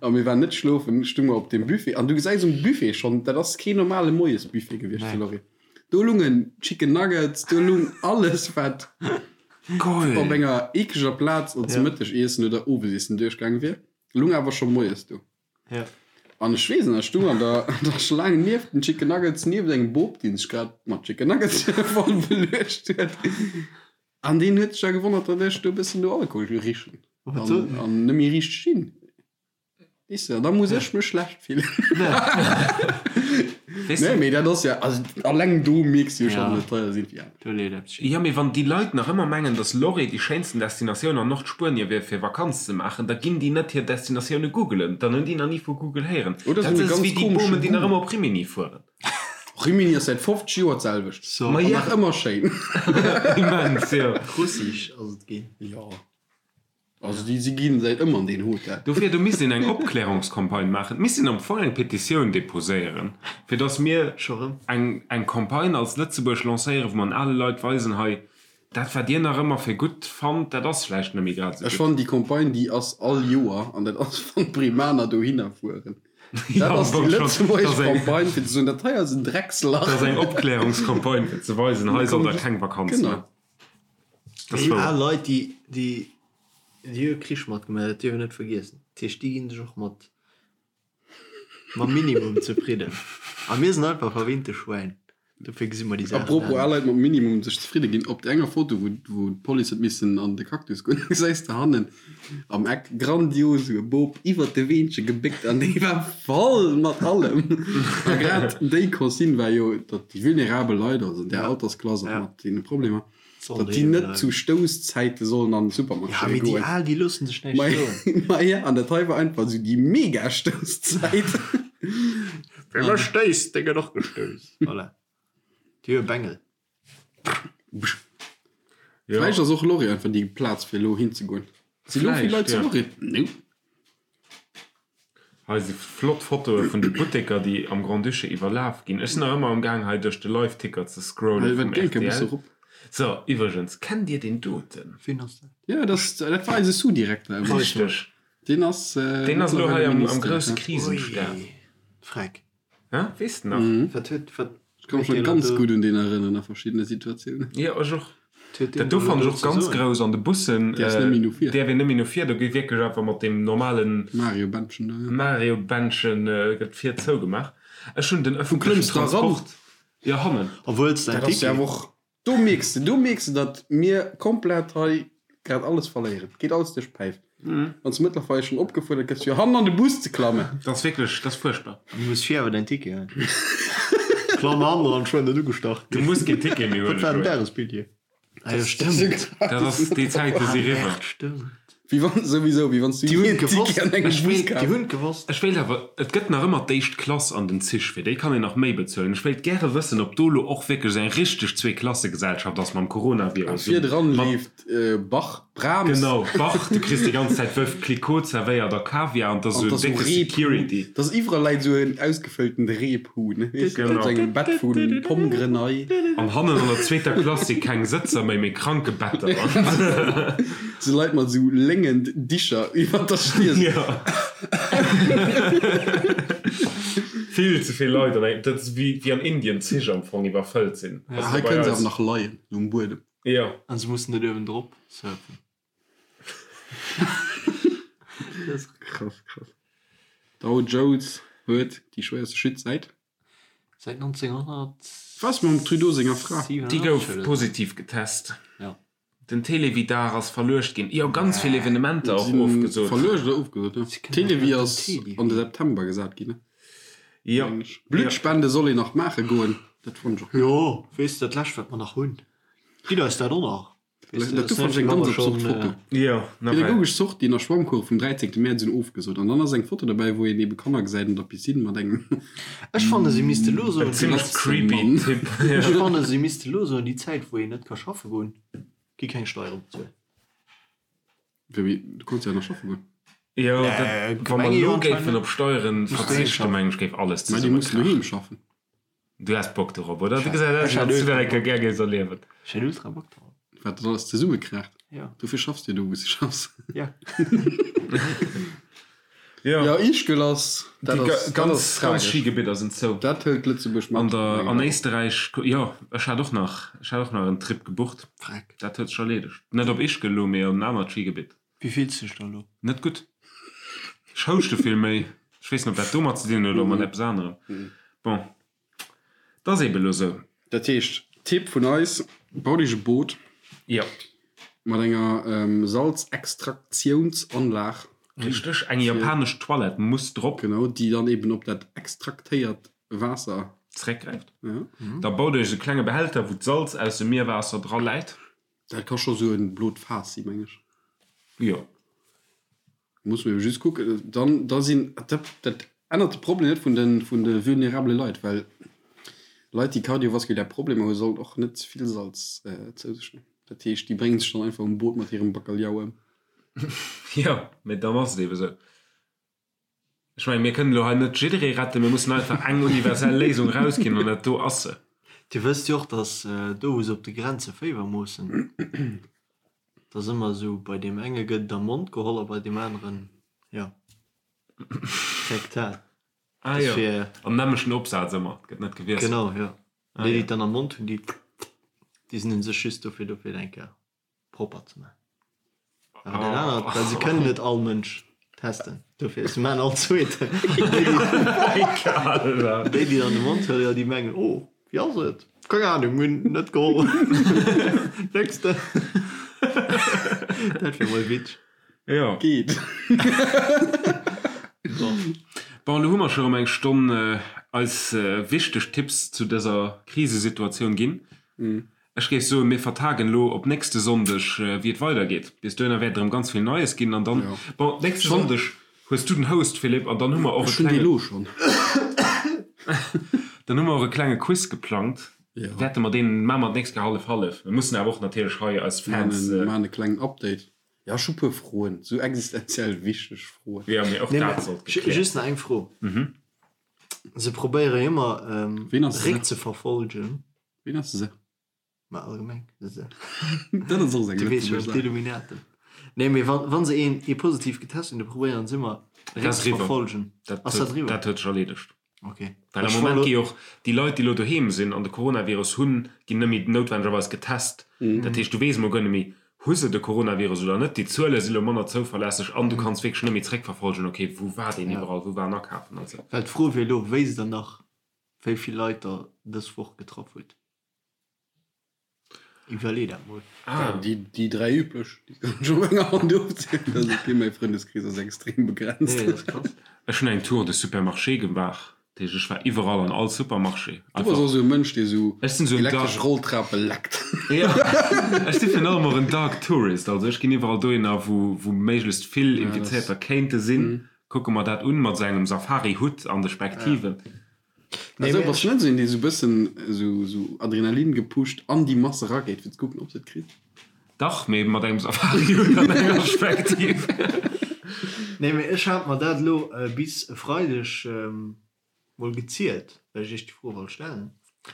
a mir waren net schlofen, stung mer op dem Buffet an du gesäis um Buffet schonn, dat ass keen normale Moiesbuffet gewiescht zu Nee. Lorry. Do lungen Chicken Nuggets, do lung alles wat Geil! op enger eekleger Plaz als Ja. Mëttegiessen oder Owesiessen duerchgaange wier, lung awer scho moies do. Ja. An ech weess nach, ech stung an der, an der Schlaang nieft den Chicken Nuggets, nieft engem Bop, deen sech grad mat Chicken Nuggets voll beluecht huet. An deen huet sech da gewonnert, datt ech do e bëssen no Alkohol richen Wat an, sot en? an net méi riicht stinn. Weess de, da muss ech mech schlecht fillen. Weess Nee, de, mee dat ass ja, also alleng do mierks du jo schonn, Ja. datt et teier sinn. Ja. Do leet eppes schief. Jo, mee wann déi Leit nach ëmmer mengen, dass Lorry déi schéinsten Destinatioun an Nordspuenie wier fir Vakanz ze maachen, da ginn déi net hir Destinatioune googelen. Dann hunn déi nach ni vu Google héieren. Oder Dat se hunn e ass ganz wéi déi komesche Bomen, déi nach Goût. ëmmer op Rimini fueren. Rimini ass säit 50 Joer d'selwecht. So. Ma An ja. nach ëmmer schéin. Immens, jo. Russisch ass et ginn. Jo. Also déi si ginn säit ëmmer an deen Hotel. Dofir, do misst een eng Opklärungscampagne maachen. Et misst een am Fong eng Petitioun deposéieren, fir datt mir Scho rëm? eng, eng Campagne als Lëtzebuerg lancéieren, wou mer an ale Leit weisen, hei, dat wat dir nach ëmmer fir gutt fannt, dat ass vläicht net méi grad esou Ech gutt. fannen déi Campagne déi ass all Joer an dat ass wann d'Breemaner dohinner fueren. Ja, Dat am ass déi Fong schon. Dat lëtzebuergesch ass eng, Campagne fir ze soen, dat hei ass en Dreckslach. dat ass eng Opklärungscampagne fir ze weisen, hei sollt der keng Vakanz Genau. maachen. Dat ass Déi wouer. al Leit, déi, déi Déi hu Krich matgemaach, dat dierf een net vergiessen. Dat heescht, déi ginn sech och mat mam Minimum zefridden. A mir sinn einfach verwinnte Schwäin. Dofir gesi mer déi Saachen Apropos al anescht. Leit mat Minimum sech zefridde ginn, op der enger Foto wou wou d'Police huet missen an de Cactus goen, gesäis de hannen am Eck grandios esou e Bop iwwert de Weenche gebéckt an dee war voll mat allem. A grad déi Consigne war jo, datt déi vulnerabel Leit, also an där Altersklass och mat deene Problemer, Sollen datt déi doheem net bleiwen. zu Stousszäite sollen an de Ja, Supermarché mee déi goen. Al, déi loossen sech näischt Ma soen. ma ja, an dat hei war einfach esou déi mega Stousszäit. Wie mech stéisst, dee gëtt och gestouss. Voilà. Déi hu e Bengel. Ja. Vläicht ass och Lorry einfach déi Plaz fir elo hinzegoen. Si lo vill Vläicht, Leit zu ja. Lorry? Nope. Hei si flott Fotoe vun de Butteker, déi am Grand-Duché iwwerlaf ginn. Ech sinn nach ëmmer am Gaang hei duerch de Live-Ticker ze scrollen vum rtl. So, iwwregens, kennt Dir deen doten? Wien ass dat? Jo, dat ass, dat war eise Sous-Direkter ëmmer. Richteg. Deen ass Deen ass elo hei mëttlerweile am Minister, grousse ja. Krisenstab. Ui, Freck. Hä? Weess de nach? Wat huet, wat Ech ka mech nach ganz gutt un deen erënneren a verschiddene Situatiounen. Jo, ech och. Dat do fannen ech och ganz grouss an de Bussen. Däerfs net méi no vir. Däerf een net méi no vir. Do gi wierklech einfach mat deem normalen. Mario-Bändchen do, jo. Mario-Bändchen gëtt vir zougemaach. Ech hunn den Wou ëffentlechen klëmms de eran? Transport. Jo, hannen. Obwuel s däin Dat ass jo Ticket. awer och Do mierks de, do mierks de, datt mir komplett hei grad alles verléieren. Et geet alles duerch d'Päif. Wann s de mëttlerweil schonn opgefuerdert gëss, fir hannen an de Bus ze klammen. Dat ass wierklech, dat ass fuerchtbar. Du muss vir awer däin Ticket hunn. Klamm hannen eran, schwënn net ugestach Du ginn. muss keen Ticket méi Wat huelen, war den Joé. Dagesbilljee? Ah jo, stëmmt. Dat ass, déi Zäite si riwwer. Stëmmt. Wéi wann, souwisou, wéi wann s du Déi hunn jee en gewosst. Ticket an engem Ech Bus wéilt, Déi kaf. hunn gewosst. Ech wéilt awer, et gëtt nach ëmmer d'éischt Klass an den Zich, fir déi kann een nach méi bezuelen. Ech wéilt gäre wëssen, ob do elo och wierklech esou eng richteg Zweeklassegesellschaft ass mam Coronavirus. Virdran Mat, leeft Bach, Brahms. genau, Bach, du kriss déi ganz Zäit Veuve Clicquot zerwéiert a Kaviar an 't ass An esou 't ass décke esou Rebhuhn. Security. 't ass iwwerall läit esou en ausgefëlltent Rebhuhn, weess de, op Genau. sou engem Bett vu Pomme Grenaille. An hannen an der zweeter Klass si keng Sëtzer méi, mee Krankebetter. Sou Leit mat sou léngen Dicher iwwer der Stier. Jo. Vill ze vill Leit an engem, dat ass wéi wéi an Indien d'Zich am Fong iwwerfëllt sinn. Ja, hei kënne se awer nach leien, sou um Buedem. Jo. An se mussen net uewendrop surfen. Krass, krass. Dow Jones huet déi schwéierste Chute säit. Säit 1900. Was mam Trudeau senger Fra? Déi gouf positiv getest. Ja. Den Télévie-Dag ass verluecht ginn. Jo, ganz vill Evenementer och ofgesot. Verluecht oder ofgesot, ja. Télévie ass an de September gesat ginn, ne? Jo. Bluttspende soll een nach maache goen, dat fonnt ech och. Jo, weess de, dat lescht wat mer nach hunn. Gitt eis dat och nach. Dat do fand ech eng ganz absurd Foto. Jo, nawell. Pädagogesch Sortien a Schwammcours vum 13. Mäerz un ofgesot. An dann ass eng Foto derbäi, wou een ebe Kanner gesäit an der Piscine mat engem. Ech fanne se misste lo soen, En zimmlech creepy Mann. Typ. Ech fanne se misste lo soen, déi Zäit wou een net ka schaffe goen, gi keng Steiere bezuelt. Wéi, du konns jo nach schaffe goen. Jo, dat, wa mer Gemeng jo elo géifen anscheinend. op Steieren Muss doheem verzichten, schaffen. mengen ech, géif alles Mä déi mussen zesummekrachen. doheem schaffen. Du häss Bock dorop, oder? Du Ech gesäis aus, hätt wéi wann s du ultra dat eng Kéier Bock. gär géifs erliewen. Ech hätt ultra Bock drop. Wat dat alles zesummekraacht. Ja. Dofir schaffs de jo do, wou s de schaffs. Ja. Jo. Ja, Ischgl ass, dat Déi ass, dat ganz, ass ganz tragesch. Skigebidder sinn zou. Dat hëlt Lëtzebuerg mat. An der, an Éisterräich, jo, ech hat och nach, ech hat och nach en Trip gebucht. Freck. Dat huet sech erleedegt. Net op Ischgl elo, mee op en anert Skigebitt. Wéi fills de dech da elo? Net gutt. Ech houschte vill méi. Ech weess net, ob dat domat ze dinn huet oder mat eppes anerem. Bon, 't ass eebe lo sou. Dat heescht, Tipp vun eis, Baut iech e Boot Jo. mat enger Salzextraktiounsanlag. Richteg. Eng japanesch Toilette muss drop. Genau, déi dann eben op dat extraktéiert Waasser. Zeréckgräift. Ja. Da baut iech e klenge Behälter, wou d'Salz aus dem Mierwaasser dra läit. Dat ka scho sou en blot Faass si, meng ech. Jo. Muss mer just kucken, dann da sinn, dat dat ännert de Problem net vun de vun de vulnerabele Leit, well Leit déi kardiovaskulär Problemer hu sollen och net ze vill Salz zou sech huelen. Dat heescht déi bréngen sech dann einfach um Boot mat hirem Bacalhau ëm. Jo, mee dann ass et eebe sou. Ech mengen, mir kënnen elo hei net jidderee retten, mir mussen einfach eng universell Léisung erausginn an dat do ass se. Dir wësst jo och, datt do wou se op de Grenze Féiwer moossen, datt ëmmer esou bei deem enge gëtt et am Mond geholl a bei deem aneren, jo, rektal. Ah jo, am nämmlechten Opsaz ëmmer, et gëtt net gewiesselt. Genau, jo. Déi, déi et dann am Mond hunn, déi, déi sinn u sech just dofir do fir et eng Kéier propper ze maachen. Awer dat anert, well se kënnen net all Mënsch testen, dofir se maachen all zweeten. Déi, déi dann de Mond huelen, jo, déi mengen, oh. Wéi ass et? Keng Ahnung, mir hunn net geholl. Nächste. Dat wier mol witzeg. Jo. Geet. Bon, elo hu mer scho rëm eng Stonn eis wichteg Tipps zu dëser Krisesituatioun ginn. Ech géif soen, mir vertagen elo op nächste Sonndeg, wéi et weidergeet. Bis dohinner wäert et erëm ganz vill Neies ginn. An dann, bon, nächste Sonndeg hues du den Host, Philippe, an dann hu mer och e Ech hunn dee klenge, lo schonn. dann hu mer och e klenge Quiz geplangt. Jo. Wäerte mer deen, maache mer d'nächst Kéier hallef-hallef. Mir mussen awer och natierlech hei eis Fans. Mir maachen e klengen Update. Jo, ech hu puer Froen, sou existenziell wichteg Froen. Jo, mee och Nee, dat mä sollt gekläert. just nach eng Fro. Se probéiere jo ëmmer, Ween ass se? Réck ze verfolgen. Ween ass se? Ma allgemeng se. Dat ass och sou eng Du weess lëtzebuergesch jo, Saach. d'Illuminaten. Nee, mee wann, wann se een, ee positiv getest hunn, da probéieren se ëmmer Dat ass réck ze eriwwer. verfolgen. Dat Ass dat huet, eriwwer? dat huet sech erleedegt. Okay. Well am Ech Moment wollt gi och déi Leit, déi elo doheem sinn an de Coronavirus hunn, ginn net méi noutwendegerweis getest. Dat heescht, du weess emol guer net méi, hu se de Coronavirus oder net. Déi Zuele si lo manner zouverlässeg an du kanns wierklech net méi zréckverfolgen, okay, wou war deen iwwerall, wou war en akafen an esou. Well d'Fro wier elo, wéi se dann nach wéi vill Leit der dës Woch getraff hutt. Iwwerlee dat mol. Ah. Déi, déi 3 üblech, déi kann ech op enger Hand ofzielen. Dat ass ok, mäi Frëndeskrees ass extrem begrenzt. Nee, dat ass krass. Ech hunn eng Tour de Supermarché gemaach, dat heescht ech war iwwerall an all Supermarché. Du bass och esou e Mënsch, dee sou Ech sinn sou en elektresch Dark. Rolltrape leckt. Jo, ech si virun allem och en Dark Tourist, also ech ginn iwwerall dohinner, wou, wou méiglechst vill Infizéierter kéinte sinn, kucke mer dat un mat esou engem Safari-Hutt an de Spektiven. Nee, Also mee bass ech. du net esou een, dee sou bëssen esou sou Adrenalin gepusht an déi Mass erageet fir ze kucken ob se et kritt? Dach, mee mat engem Safari-Hutt an enger Spektiv. Nee, mee ech hat mer dat elo bis e Freideg mol gezielt, well ech iech déi Fro wollt stellen.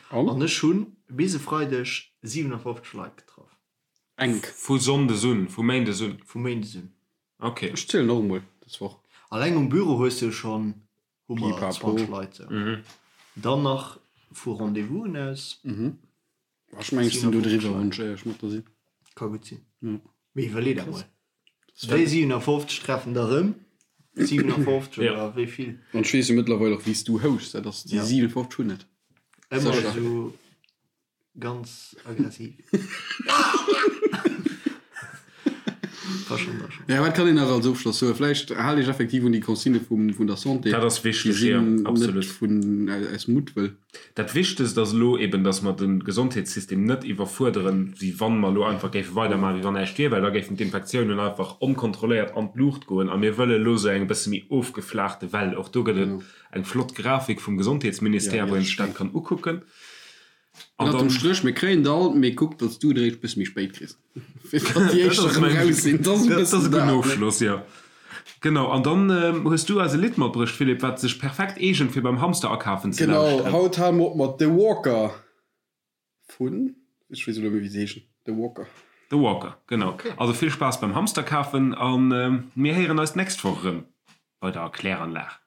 An? An ech hunn bis e Freideg 57 Leit getraff. Enk. Vu Sonndes un, vu Méindes un? Vu Méindes un. Ok. Ech zielen och emol dës Woch. Alleng um Büro hues du jo schonn hu mer Pipapo. 20 Leit sou. Dann nach vu Rendez-vousen aus. Ech mengen ech sinn do 57 driwwer, Leit. wann ech éierlech mat der sinn. Ka gutt sinn. Jo. Mee iwwerlee dat mol. Déi 57 treffen der erëm 57 Ja. oder wéi vill? An ech weess jo mëttlerweil och wéi s du houschs, dat ass déi Ja. 57 hunn et. Ëmmer Sécher. esou Ganz aggressiv. War schon, war schon. Ja, wat kann een nach als Ofschloss soen? Vläicht haalt iech effektiv un déi Consigne vum, vun der Santé. Dat ass Déi wichteg, jo, sinn net absolut. vun, aus Muttwëll. Dat Wichtegst ass elo eben, dass mer de Gesondheetssystem net iwwerfuerderen, wéi wann mer elo einfach géife weidermaachen, wéi wann näischt wier, well da géifen d'Infektiounen einfach onkontrolléiert an d'Luucht goen. A mir wëlle elo esou eng e bësse méi ofgeflaachte Well. Och do gëtt et eng flott Grafik vum Gesondheetsministère, Ja, déi wou een ass sech dat schéin. kann ukucken. An Ënnert dem dann, Stréch, mir kréien der all, mee kuck, datt s du et eréischt bësse méi spéit kriss, fir datt déi dat éischt ass erëm meng, raus sinn. Dat ass e dat ass bëssen e gudden dat, ne? Ofschloss, jo. Genau, an dann hues du eis e Lidd matbruecht, Philippe, wat sech perfekt eegent, fir beim Hamster akafen ze Genau, lauschteren. haut hale mer op mat The Walker vun, ech weess elo net méi, wéi se heeschen, The Walker. The Walker, genau. Also vill Spaass beim Hamster kafen a mir héieren eis d'nächst Woch erëm bei der Kläranlag.